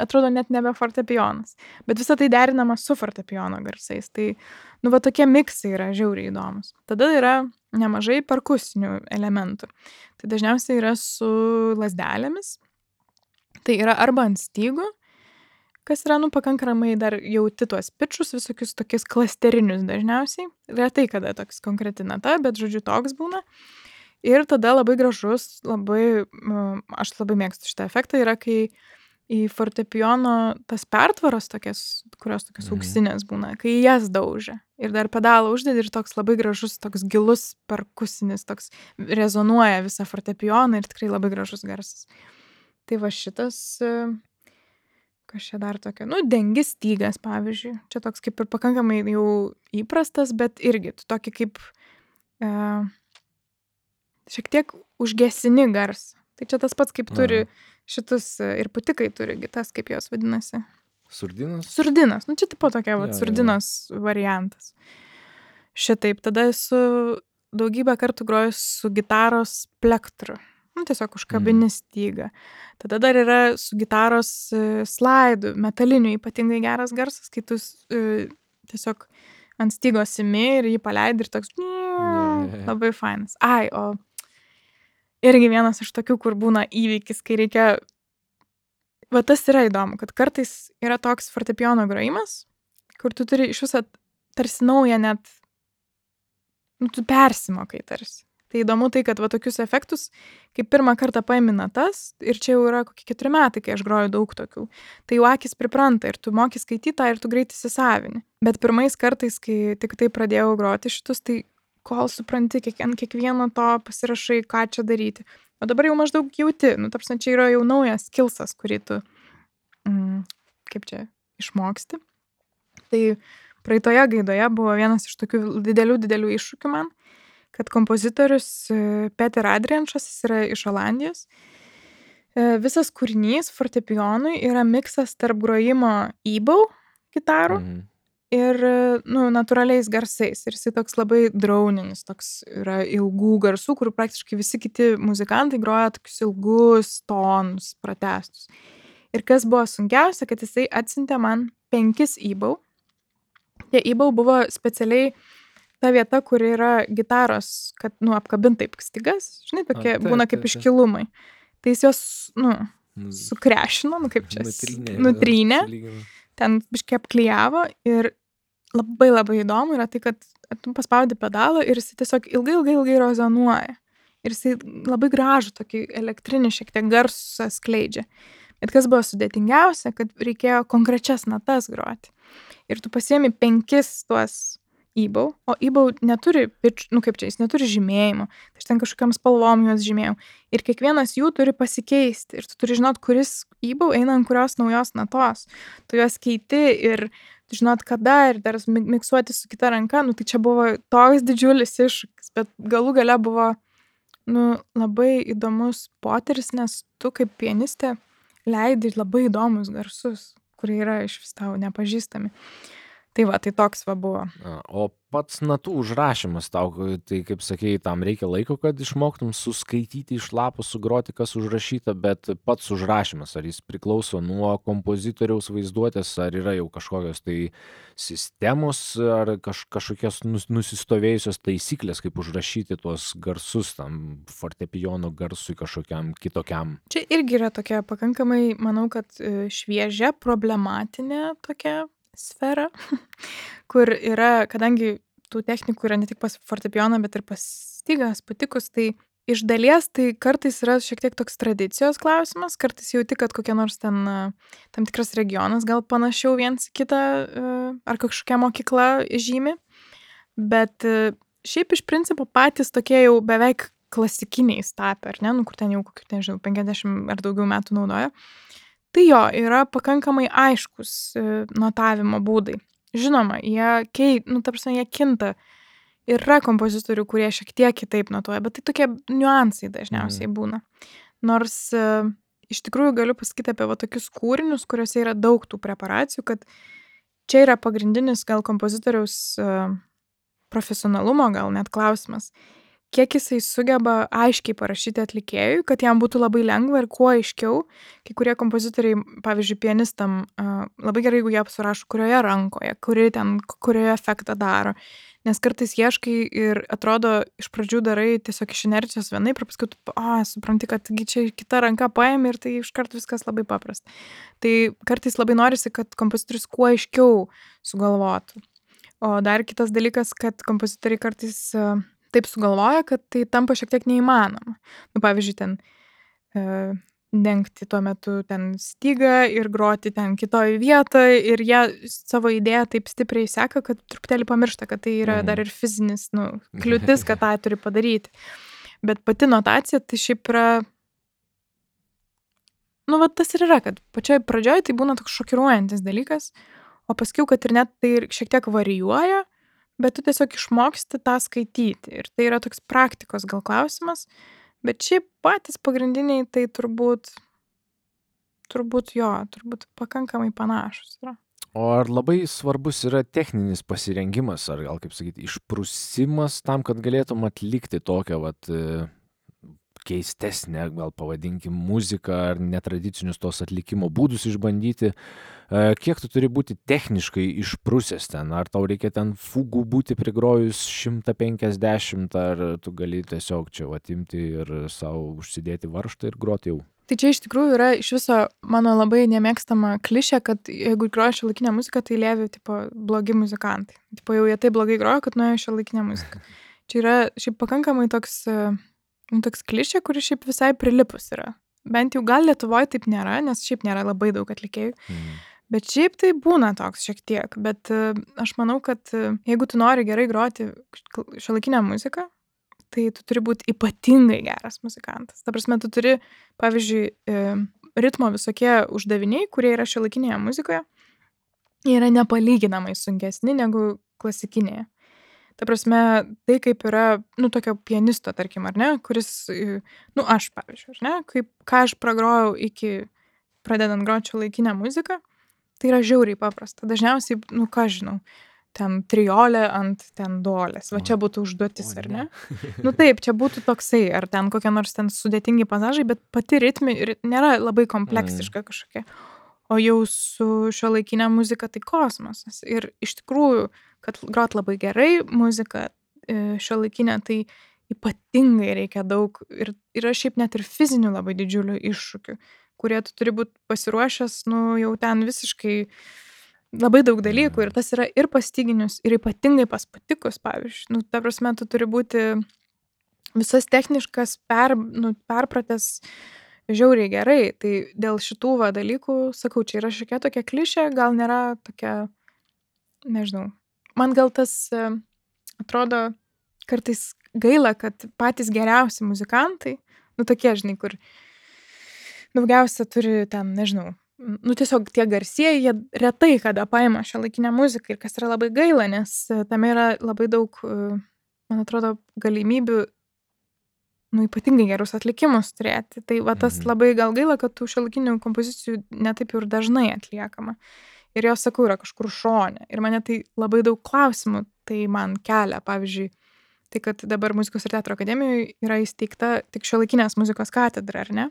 atrodo net nebe fortepijonas. Bet visą tai derinama su fortepijono garsais. Tai, tokie miksai yra žiauriai įdomus. Tada yra nemažai perkusinių elementų. Tai dažniausiai yra su lazdelėmis. Tai yra arba ant stygų, kas yra, pakankamai dar jauti tuos pitčus, visokius tokius klasterinius dažniausiai. Retai kada toks konkreti nata, bet, žodžiu, toks būna. Ir tada labai gražus, aš labai mėgstu šitą efektą, yra, kai į fortepijono tas pertvaros tokias, kurios tokios auksinės būna, kai jas daužia. Ir dar pedalą uždedi ir toks labai gražus, toks gilus perkusinis, toks rezonuoja visą fortepijoną ir tikrai labai gražus garsas. Tai va šitas... Kas čia dar tokia? Dengi stygas, pavyzdžiui. Čia toks kaip ir pakankamai jau įprastas, bet irgi tokį kaip šiek tiek užgesini garsą. Tai čia tas pats, kaip turi šitus ir putikai turi, tas kaip jos vadinasi. Surdinas? Surdinas. Čia tipo tokia surdinos variantas. Šitaip. Tada esu daugybę kartų grojus su gitaros plektru. Tiesiog užkabini stygą. Tada dar yra su gitaros slaidų, metaliniu ypatingai geras garsas, kai tu tiesiog ant stygos imi ir jį paleidi ir toks labai fainas. O irgi vienas iš tokių, kur būna įvykis, kai reikia... Va tas yra įdomu, kad kartais yra toks fortepijono grojimas, kur tu turi iš viso tarsi naują net... tu persimokai tarsi. Tai įdomu tai, kad va tokius efektus, kai pirmą kartą paimi natas, ir čia jau yra kokie 4 metai, kai aš groju daug tokių, tai jau akis pripranta ir tu moki skaityti tą ir tu greit įsisavini. Bet pirmais kartais, kai tik tai pradėjau groti šitus, tai kol supranti, kiekvieno to pasirašai, ką čia daryti. O dabar jau maždaug jauti, nu, tarpsne, čia yra jau naujas skillsas, kurį tu, kaip čia, išmoksti. Tai praeitoje gaidoje buvo vienas iš tokių didelių iššūkių man, kad kompozitorius Peter Adrianšas, jis yra iš Olandijos. Visas kūrinys fortepijonui yra miksas tarp grojimo e-bow gitarų ir, nu, natūraliais garsais. Ir jisai toks labai drauninis, toks yra ilgų garsų, kur praktiškai visi kiti muzikantai groja tokius ilgus tonus, pratęstus. Ir kas buvo sunkiausia, kad jisai atsiuntė man 5 e-bow. Tie e-bow buvo specialiai ta vieta, kur yra gitaros, kad, nu, apkabint taip stygas, žinai, tokie būna kaip iškilumai. Tai jis jos, nu, sukrešino, nu, kaip čia, nutrynė, ten biškai apklijavo ir labai įdomu yra tai, kad tu paspaudi pedalą ir jis tiesiog ilgai rezonuoja. Ir jis labai gražų, tokį elektrinį šiek tiek garsą skleidžia. Bet kas buvo sudėtingiausia, kad reikėjo konkrečias natas groti. Ir tu pasiemi 5 tuos e-bow, o e-bow neturi nu kaip čia, jis neturi žymėjimo, tai aš ten kažkokiam spalvom juos žymėjau. Ir kiekvienas jų turi pasikeisti ir tu turi žinot, kuris e-bow eina ant kurios naujos natos. Tu juos keiti ir tu žinot kada ir dar miksuoti su kita ranka, nu tai čia buvo toks didžiulis iššūkis, bet galų gale buvo, nu, labai įdomus potyris, nes tu kaip pianistė leidi labai įdomus garsus, kurie yra iš vis tau nepažįstami. Tai va, tai toks va buvo. O pats natų užrašymas tau, tai kaip sakėjai, tam reikia laiko, kad išmoktum suskaityti iš lapų, sugroti, kas užrašyta, bet pats užrašymas, ar jis priklauso nuo kompozitoriaus vaizduotės, ar yra jau kažkokios tai sistemos, ar kažkokios nusistovėjusios taisyklės, kaip užrašyti tuos garsus tam fortepijono garsui kažkokiam kitokiam. Čia irgi yra tokia pakankamai, manau, kad šviežia, problematinė tokia sfera, kur yra, kadangi tų technikų yra ne tik pas fortepijoną, bet ir pas stygas, patikus, tai iš dalies tai kartais yra šiek tiek toks tradicijos klausimas, kartais jauti, kad kokia nors ten tam tikras regionas gal panašiau viens kitą ar kažkokia mokykla žymi, bet šiaip iš principo patys tokie jau beveik klasikiniais tapę, ar ne, nu kur ten jau kokių, nežinau, 50 ar daugiau metų naudoja. Tai jo, yra pakankamai aiškus notavimo būdai. Žinoma, jie kinta. Yra kompozitorių, kurie šiek tiek kitaip notuoja, bet tai tokie niuansai dažniausiai būna. Nors iš tikrųjų galiu pasakyti apie va tokius kūrinius, kuriuose yra daug tų preparacijų, kad čia yra pagrindinis gal kompozitoriaus profesionalumo, gal net klausimas. Kiek jisai sugeba aiškiai parašyti atlikėjui, kad jam būtų labai lengva ir kuo aiškiau. Kai kurie kompozitoriai, pavyzdžiui, pianistam, labai gerai, jeigu jie surašo, kurioje rankoje, kurioje efektą daro. Nes kartais ieškai ir atrodo, iš pradžių darai tiesiog iš inercijos vienaip, ir paskui supranti, kad čia kita ranka paėmė ir tai iškart viskas labai paprasta. Tai kartais labai norisi, kad kompozitorius kuo aiškiau sugalvotų. O dar kitas dalykas, kad kompozitoriai kartais taip sugalvoja, kad tai tampa šiek tiek neįmanoma. Nu, pavyzdžiui, ten dengti tuo metu ten stygą ir groti ten kitoj vietoje ir jie savo idėją taip stipriai seka, kad truputėlį pamiršta, kad tai yra dar ir fizinis, kliūtis, kad tą turi padaryti. Bet pati notacija tai šiaip yra, va tas ir yra, kad pačioj pradžioj tai būna toks šokiruojantis dalykas, o paskiau, kad ir net tai šiek tiek varijuoja, bet tu tiesiog išmoksti tą skaityti. Ir tai yra toks praktikos gal klausimas, bet šiaip patys pagrindiniai tai turbūt pakankamai panašus yra. O ar labai svarbus yra techninis pasirengimas, ar gal, kaip sakyti, išprusimas tam, kad galėtum atlikti tokią, keistesnę, gal pavadinkim, muziką ar netradicinius tos atlikimo būdus išbandyti? Kiek tu turi būti techniškai išprusęs ten? Ar tau reikia ten fugų būti prigrojus 150, ar tu gali tiesiog čia imti ir savo užsidėti varžtą ir groti jau? Tai čia iš tikrųjų yra iš viso mano labai nemėgstama klišė, kad jeigu groja šiuolaikinę muziką, tai Levi, blogi muzikantai. Jau jie taip blogai groja, kad nuėjo šiuolaikinę muziką. Čia yra šiaip pakankamai toks klišė, kuri šiaip visai prilipus yra. Bent jau gal Lietuvoje taip nėra, nes šiaip nėra labai daug atlikėjų. Bet šiaip tai būna toks šiek tiek. Bet aš manau, kad jeigu tu nori gerai groti šiuolaikinę muziką, tai tu turi būti ypatingai geras muzikantas. Ta prasme, tu turi, pavyzdžiui, ritmo visokie uždaviniai, kurie yra šiuolaikinėje muzikoje, jie yra nepalyginamai sunkesni negu klasikinėje. Ta prasme, tai kaip yra, tokio pianisto, tarkim, ar ne, kuris, aš, pavyzdžiui, ar ne, ką aš pragrojau iki pradedant groti šiuolaikinę muziką, tai yra žiauriai paprasta. Dažniausiai, ką žinau, ten triolė ant ten duolės. Va čia būtų užduotis, ar ne? Taip, čia būtų toksai, ar ten kokie nors ten sudėtingi pasažai, bet pati ritmi nėra labai kompleksiška kažkokia. O jau su šiuolaikinė muzika tai kosmosas. Ir iš tikrųjų, kad grot labai gerai muziką šiuolaikinę, tai ypatingai reikia daug. Ir yra šiaip net ir fizinių labai didžiulių iššūkių, kurie tu turi būti pasiruošęs, jau ten visiškai labai daug dalykų. Ir tas yra ir pas styginius, ir ypatingai pas pūtikus, pavyzdžiui. Ta prasme, tu turi būti visas techniškas perpratęs žiauriai gerai. Tai dėl šitų dalykų, sakau, čia yra šiokia tokia klišė, gal nėra tokia, nežinau. Man gal tas atrodo kartais gaila, kad patys geriausi muzikantai, tokie, žinai, kur daugiausia turi ten, nežinau, tiesiog tie garsieji, jie retai kada paima šiuolaikinę muziką ir kas yra labai gaila, nes tame yra labai daug, man atrodo, galimybių ypatingai gerus atlikimus turėti. Tai tas labai gal gaila, kad tų šiuolaikinių kompozicijų netaip ir dažnai atliekama. Ir jos, sakau, yra kažkur šone. Ir mane tai labai daug klausimų tai man kelia. Pavyzdžiui, tai kad dabar Muzikos ir teatro akademijoje yra įsteigta tik šiuolaikinės muzikos katedra, ar ne?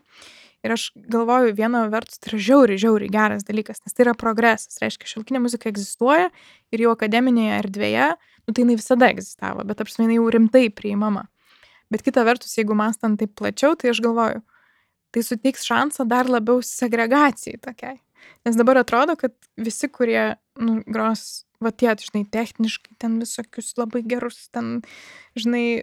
Ir aš galvoju, viena vertus tai yra žiauriai geras dalykas, nes tai yra progresas. Reiškia, šiuolaikinė muzika egzistuoja ir jau akademinėje erdvėje, tai jinai visada egzistavo, bet apskritai jinai jau rimtai priimama. Bet kita vertus, jeigu mąstant taip plačiau, tai aš galvoju, tai suteiks šansą dar labiau segregacijai tokiai. Nes dabar atrodo, kad visi, kurie gros, tie, žinai, techniškai, ten visokius labai gerus, ten, žinai,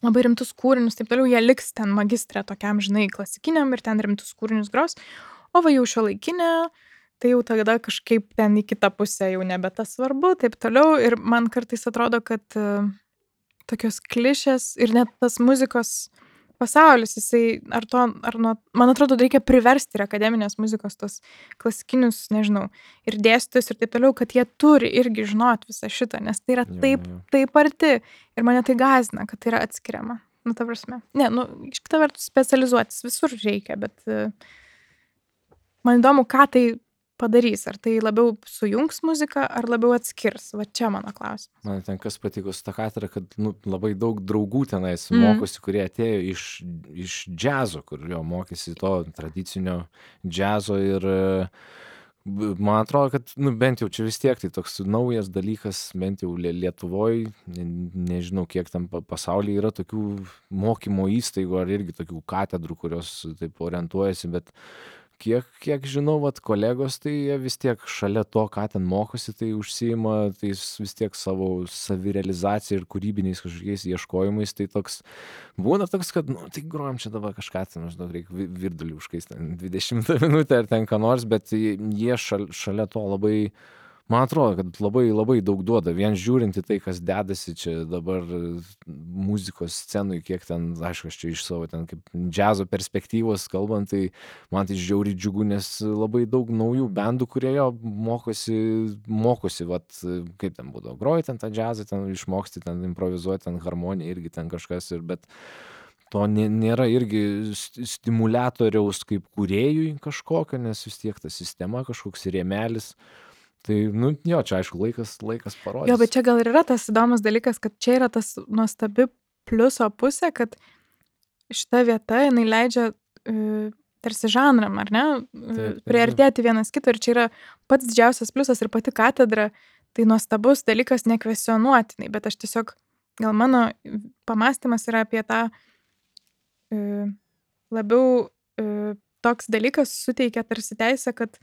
labai rimtus kūrinius, taip toliau, jie liks ten magistrė tokiam, žinai, klasikiniam ir ten rimtus kūrinius gros, o jau šiuolaikinė, tai jau tada kažkaip ten į kitą pusę jau nebe tas svarbu, taip toliau. Ir man kartais atrodo, kad tokios klišės ir net tas muzikos pasaulis, jisai, man atrodo, reikia priversti ir akademinės muzikos tos klasikinius, nežinau, ir dėstytojus ir taip toliau, kad jie turi irgi žinot visą šitą, nes tai yra taip arti ir mane tai gąsdina, kad tai yra atskiriama. Ta prasme. Ne, iš kita vertus specializuotis visur reikia, bet man įdomu, ką tai padarys, ar tai labiau sujungs muziką, ar labiau atskirs. Va čia mano klausimas. Man ten kas patiko su ta katedra, kad labai daug draugų tenais mokosi, kurie atėjo iš džiazo, kur jo mokėsi to tradicinio džiazo ir man atrodo, kad bent jau čia vis tiek tai toks naujas dalykas, bent jau Lietuvoje, nežinau kiek tam pasaulyje yra tokių mokymo įstaigų ar irgi tokių katedrų, kurios taip orientuojasi, bet kiek žinau, kolegos, tai jie vis tiek šalia to, ką ten mokosi, tai užsiima tais vis tiek savo savirealizacija ir kūrybiniais kažkokiais ieškojimais, tai toks, būna toks, kad, tai grojam čia dabar kažką, tai reikia virdulį užkais ten 20 minutę ar ten ką nors, bet jie šalia to labai, man atrodo, kad labai daug duoda, vien žiūrint į tai, kas dedasi čia dabar muzikos scenui, kiek ten, aišku, aš čia iš savo ten kaip džiazo perspektyvos kalbant, tai man tai žiauriai džiugu, nes labai daug naujų bendų, kurie jo mokosi, kaip ten būdavo, groji ten tą džiazą, ten išmoksti, ten improvizuoti, ten harmoniją irgi ten kažkas, bet to nėra irgi stimuliatoriaus kaip kūrėjui kažkokio, nes vis tiek ta sistema kažkoks rėmelis. Tai, jo, čia aišku, laikas parodys. Jo, bet čia gal ir yra tas įdomus dalykas, kad čia yra tas nuostabi pliuso pusė, kad šita vieta, jinai leidžia tarsi žanram, ar ne, priartėti vienas kito, ir čia yra pats didžiausias pliusas ir pati katedra, tai nuostabus dalykas nekvestionuotinai, bet aš tiesiog, gal mano pamąstymas yra apie tą labiau toks dalykas suteikia tarsi teisę, kad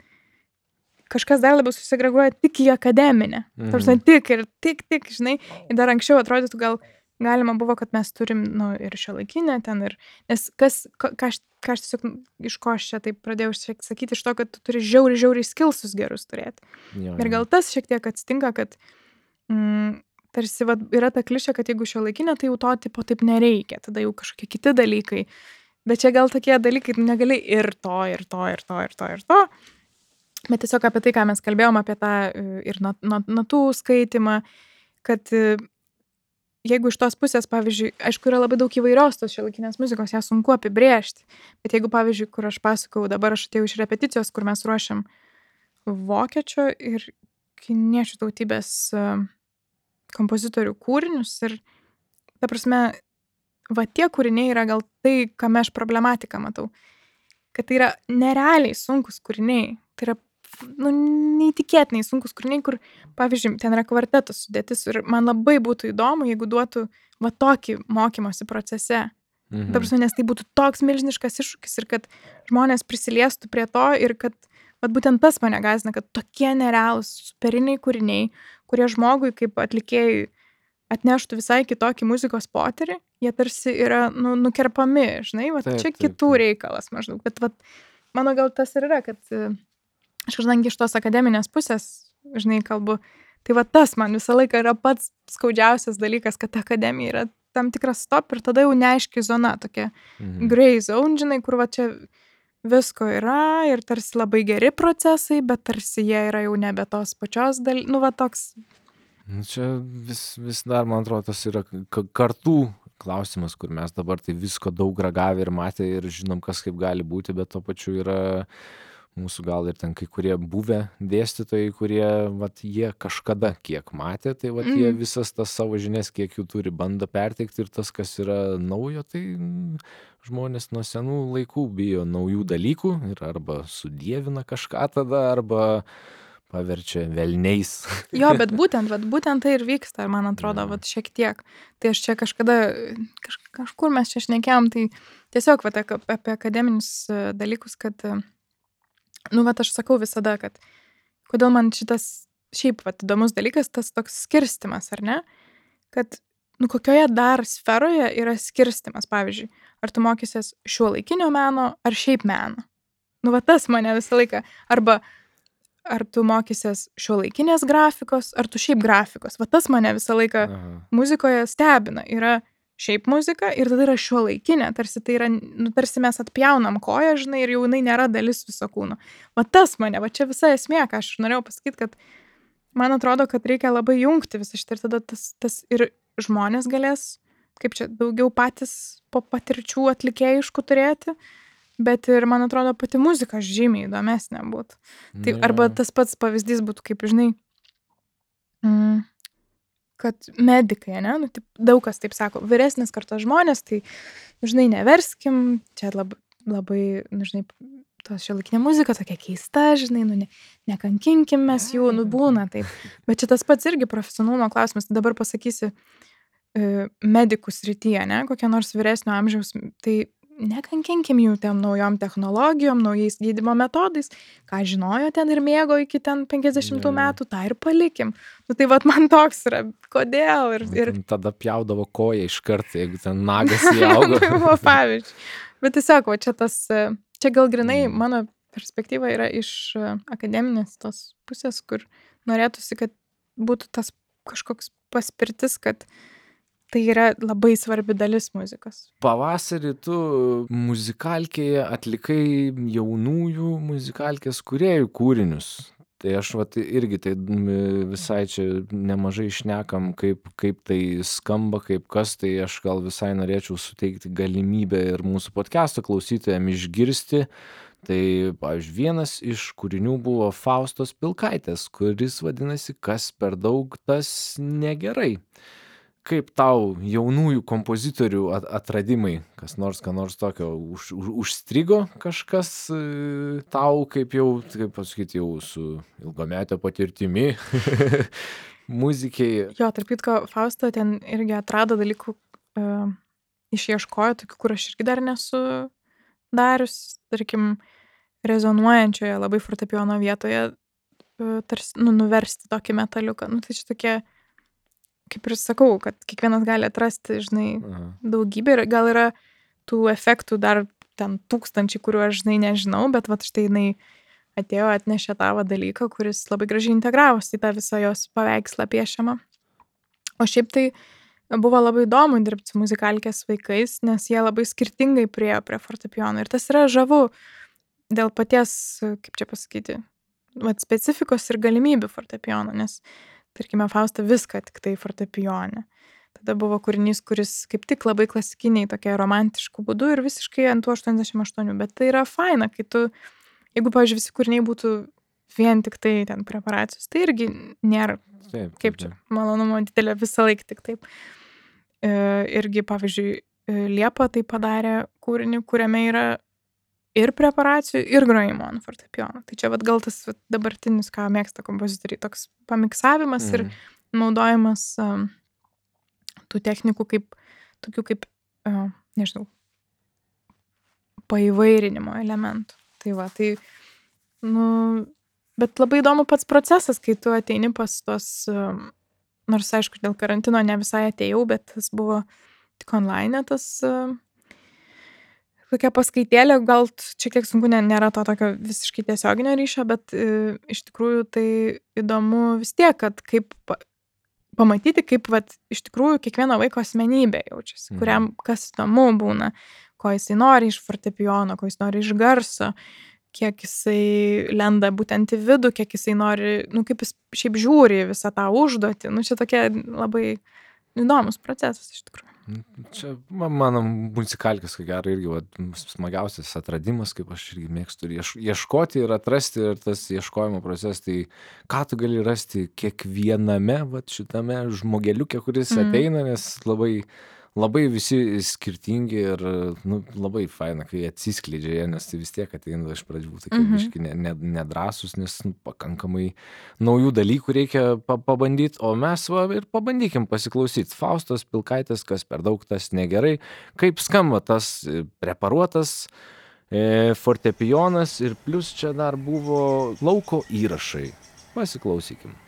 kažkas dar labiau susegreguoja tik į akademinę. Ta prasme, tik, žinai. Ir dar anksčiau atrodytų gal galima buvo, kad mes turim, ir šiuolaikinę ten, nes ką aš tiesiog, iš ko aš čia taip pradėjau sakyti, iš to, kad tu turi žiauriai skilsus gerus turėti. Ir gal tas šiek tiek atsitinka, kad tarsi yra ta klišė, kad jeigu šiuolaikinė, tai jau to tipo taip nereikia, tada jau kažkokie kiti dalykai. Bet čia gal tokie dalykai, negali ir to. Bet tiesiog apie tai, ką mes kalbėjom, apie tą ir natų skaitimą, kad jeigu iš tos pusės, pavyzdžiui, aišku, yra labai daug įvairios tos šiuolaikinės muzikos, ją sunku apibrėžti. Bet jeigu, pavyzdžiui, kur aš pasakau, dabar aš atėjau iš repeticijos, kur mes ruošiam vokiečio ir kiniečių tautybės kompozitorių kūrinius ir, ta prasme, tie kūriniai yra gal tai, kame aš problematiką matau. Kad tai yra nerealiai sunkus kūriniai. Tai yra neįtikėtinai sunkus kūriniai, kur, pavyzdžiui, ten yra kvartetos sudėtis ir man labai būtų įdomu, jeigu duotų tokį mokymosi procese. Ta prasme, nes tai būtų toks milžiniškas iššūkis ir kad žmonės prisiliestų prie to ir kad būtent tas mane gąsdina, kad tokie nerealūs superiniai kūriniai, kurie žmogui kaip atlikėjui atneštų visai kitokį muzikos potyrį, jie tarsi yra nukerpami, žinai, čia kitų reikalas maždaug. Bet mano gal tas ir yra, kad aš kadangi iš tos akademinės pusės, žinai, kalbu, tai tas man visą laiką yra pats skaudžiausias dalykas, kad akademija yra tam tikras stop ir tada jau neaiški zona, tokia gray zone, žinai, kur čia visko yra ir tarsi labai geri procesai, bet tarsi jie yra jau nebe tos pačios toks. Čia vis dar, man atrodo, tas yra kartų klausimas, kur mes dabar tai visko daug ragavę ir matę ir žinom, kas kaip gali būti, bet to pačiu yra mūsų gal ir ten kai kurie buvę dėstytojai, kurie, jie kažkada kiek matė, tai jie visas tas savo žinias, kiek jų turi, bando perteikti ir tas, kas yra naujo, tai žmonės nuo senų laikų bijo naujų dalykų ir arba sudievina kažką tada, arba paverčia velniais. Jo, bet būtent tai ir vyksta, man atrodo, šiek tiek. Tai aš čia kažkur mes čia šnekėjom, tai tiesiog apie akademinius dalykus, kad aš sakau visada, kad kodėl man šitas šiaip įdomus dalykas, tas toks skirstimas, ar ne? Kad, kokioje dar sferoje yra skirstimas, pavyzdžiui, ar tu mokysies šiuolaikinio meno, ar šiaip meno? Tas mane visą laiką. Arba, ar tu mokysies šiuolaikinės grafikos, ar tu šiaip grafikos? Tas mane visą laiką muzikoje stebina. Yra šiaip muzika ir tada yra šiuolaikinė, tarsi tai yra, tarsi mes atpjaunam koją, žinai, ir jau jinai nėra dalis viso kūno. Tas mane, čia visa esmė, ką aš norėjau pasakyti, kad man atrodo, kad reikia labai jungti visą šitą ir tada tas ir žmonės galės, kaip čia, daugiau patys po patirčių atlikėjiškų turėti, bet ir, man atrodo, pati muzika žymiai įdomesnė būtų. Tai arba tas pats pavyzdys būtų, kaip, žinai, kad medikai, ne, daug kas taip sako, vyresnės kartos žmonės, tai, žinai, neverskim, čia labai, žinai, tos šiuolaikinė muzika tokia keista, žinai, nekankinkim mes jų, būna taip. Bet čia tas pats irgi profesionalumo klausimas, dabar pasakysi medikų srityje, ne, kokie nors vyresnio amžiaus, tai nekankinkim jų tiem naujom technologijom, naujais gydymo metodais, ką žinojo ten ir mėgo iki ten 50 metų, tą ir palikim. Tai man toks yra, kodėl ir... Tada pjaudavo koją iš karto, jeigu ten nagas įaugo. Tai buvo pavyzdžiui. Bet tiesiog, čia gal grinai mano perspektyva yra iš akademinės tos pusės, kur norėtųsi, kad būtų tas kažkoks paspirtis, kad tai yra labai svarbi dalis muzikos. Pavasarį tu muzikalkėje atlikai jaunųjų muzikalkės kūrėjų kūrinius. Tai aš irgi tai visai čia nemažai šnekam, kaip tai skamba, kaip kas, tai aš gal visai norėčiau suteikti galimybę ir mūsų podcast'o klausytojams išgirsti. Tai, pavyzdžiui, vienas iš kūrinių buvo Faustos Pilkaitės, kuris vadinasi Kas per daug, tas negerai. Kaip tau jaunųjų kompozitorių atradimai, kas nors tokio užstrigo kažkas tau, kaip pasakyti, jau su ilgametio patirtimi muzikiai? Jo, tarp kitko, Fausta ten irgi atrado dalykų, išieškojo tokių, kur aš irgi dar nesu darius, tarkim, rezonuojančioje labai fortepijono vietoje tarsi, nuversti tokį metaliuką. Tai čia tokie, kaip ir sakau, kad kiekvienas gali atrasti, žinai, daugybę ir gal yra tų efektų dar ten 1000, kuriuo aš, žinai, nežinau, bet štai jinai atėjo, atnešė tą dalyką, kuris labai gražiai integravosi į tą visą jos paveikslą piešiamą. O šiaip tai buvo labai įdomu dirbti su muzikalkės vaikais, nes jie labai skirtingai priėjo prie fortepijono. Ir tas yra žavu dėl paties, kaip čia pasakyti, specifikos ir galimybių fortepijono, nes, tarkime, Fausta viską tik tai fortepijone. Tada buvo kūrinys, kuris kaip tik labai klasikiniai, tokia romantiškų būdų ir visiškai ant 88, bet tai yra faina, kai tu, jeigu, pavyzdžiui, visi kūriniai būtų vien tik tai ten preparacijos, tai irgi nėra, kaip čia, malonumo didelė visą laiką tik taip. Irgi, pavyzdžiui, Liepa tai padarė kūrinį, kuriame yra ir preparacijų, ir grojimo ant fortepijono. Tai čia gal tas dabartinis, ką mėgsta kompozitoriai, toks pamiksavimas ir naudojimas tų technikų tokių kaip, nežinau, paįvairinimo elementų. Tai, bet labai įdomu pats procesas, kai tu ateini pas tos, nors, aišku, dėl karantino ne visai atėjau, bet tas buvo tik online, tas tokia paskaitėlė, gal šiek tiek sunku, nėra to tokio visiškai tiesioginio ryšio, bet iš tikrųjų tai įdomu vis tiek, kad kaip pamatyti, kaip iš tikrųjų kiekvieno vaiko asmenybė jaučiasi, kuriam kas įdomu būna, ko jisai nori iš fortepijono, ko jis nori iš garso, kiek jisai lenda būtent į vidų, kiek jisai nori, kaip jis šiaip žiūri visą tą užduotį. Čia tokia labai įdomus procesas iš tikrųjų. Čia mano muzikalkės, ko gero, irgi smagiausias atradimas, kaip aš irgi mėgstu ieškoti ir atrasti, ir tas ieškojimo procesas, tai ką tu gali rasti kiekviename šitame žmogeliuke, kuris ateina, nes labai visi skirtingi ir labai faina, kai atsiskleidžia jie, nes tai vis tiek ateina iš pradžių tokie biški nedrąsus, nes pakankamai naujų dalykų reikia pabandyti, o mes ir pabandykim pasiklausyti. Faustos Pilkaitės, Kas per daug, tas negerai, kaip skamba tas preparuotas fortepijonas ir plus čia dar buvo lauko įrašai. Pasiklausykim.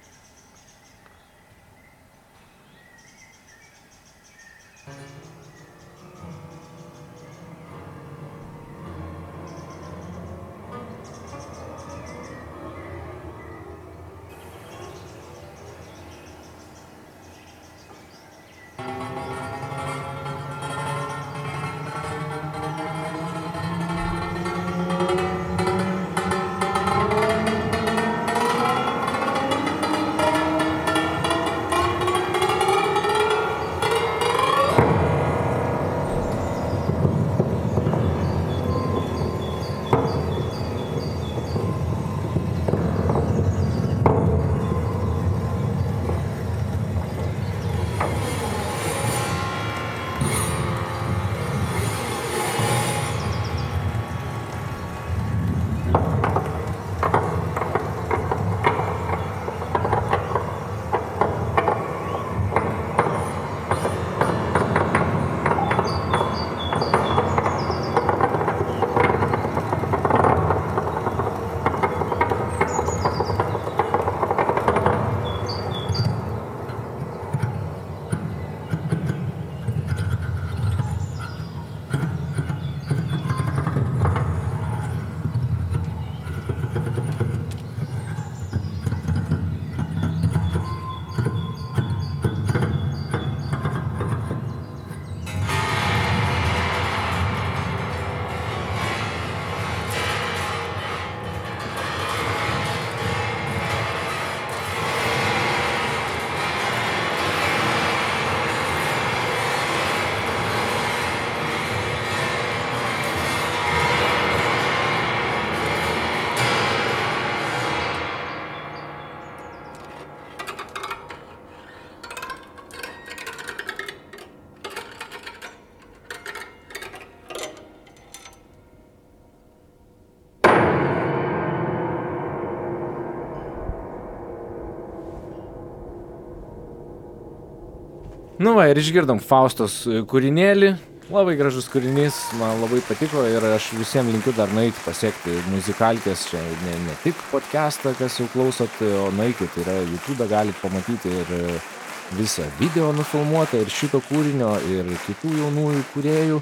Ir išgirdom Faustos kūrinėlį, Labai gražus kūrinys, man labai patiko ir aš visiems linkiu dar nueiti pasiekti muzikalkės, čia ne tik podcastą, kas jau klausot, o nueikit, yra YouTube galit pamatyti ir visą video nufilmuotą ir šito kūrinio, ir kitų jaunųjų kūrėjų,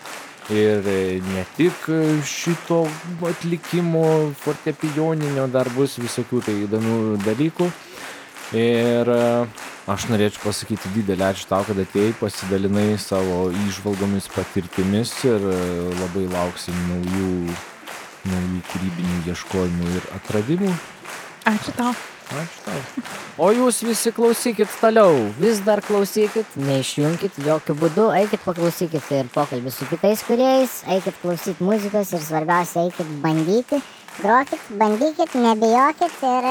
ir ne tik šito atlikimo fortepijoninio, dar bus visokių tai įdomių dalykų. Ir aš norėčiau pasakyti didelį ačiū tau, kad atėjai, pasidalinai savo įžvalgomis, patirtimis ir labai lauksim naujų kūrybinių ieškojimų ir atradimų. Ačiū tau. Ačiū tau. O jūs visi klausykit toliau, vis dar klausykit, neišjunkit jokių būdų, eikit paklausykit ir pokalbį su kitais kūrėjais, eikit klausyti muzikos ir svarbiausia, eikit bandyti, grokit, bandykit, nebijokit ir...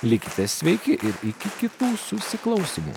Likite sveiki ir iki kitų susiklausimų.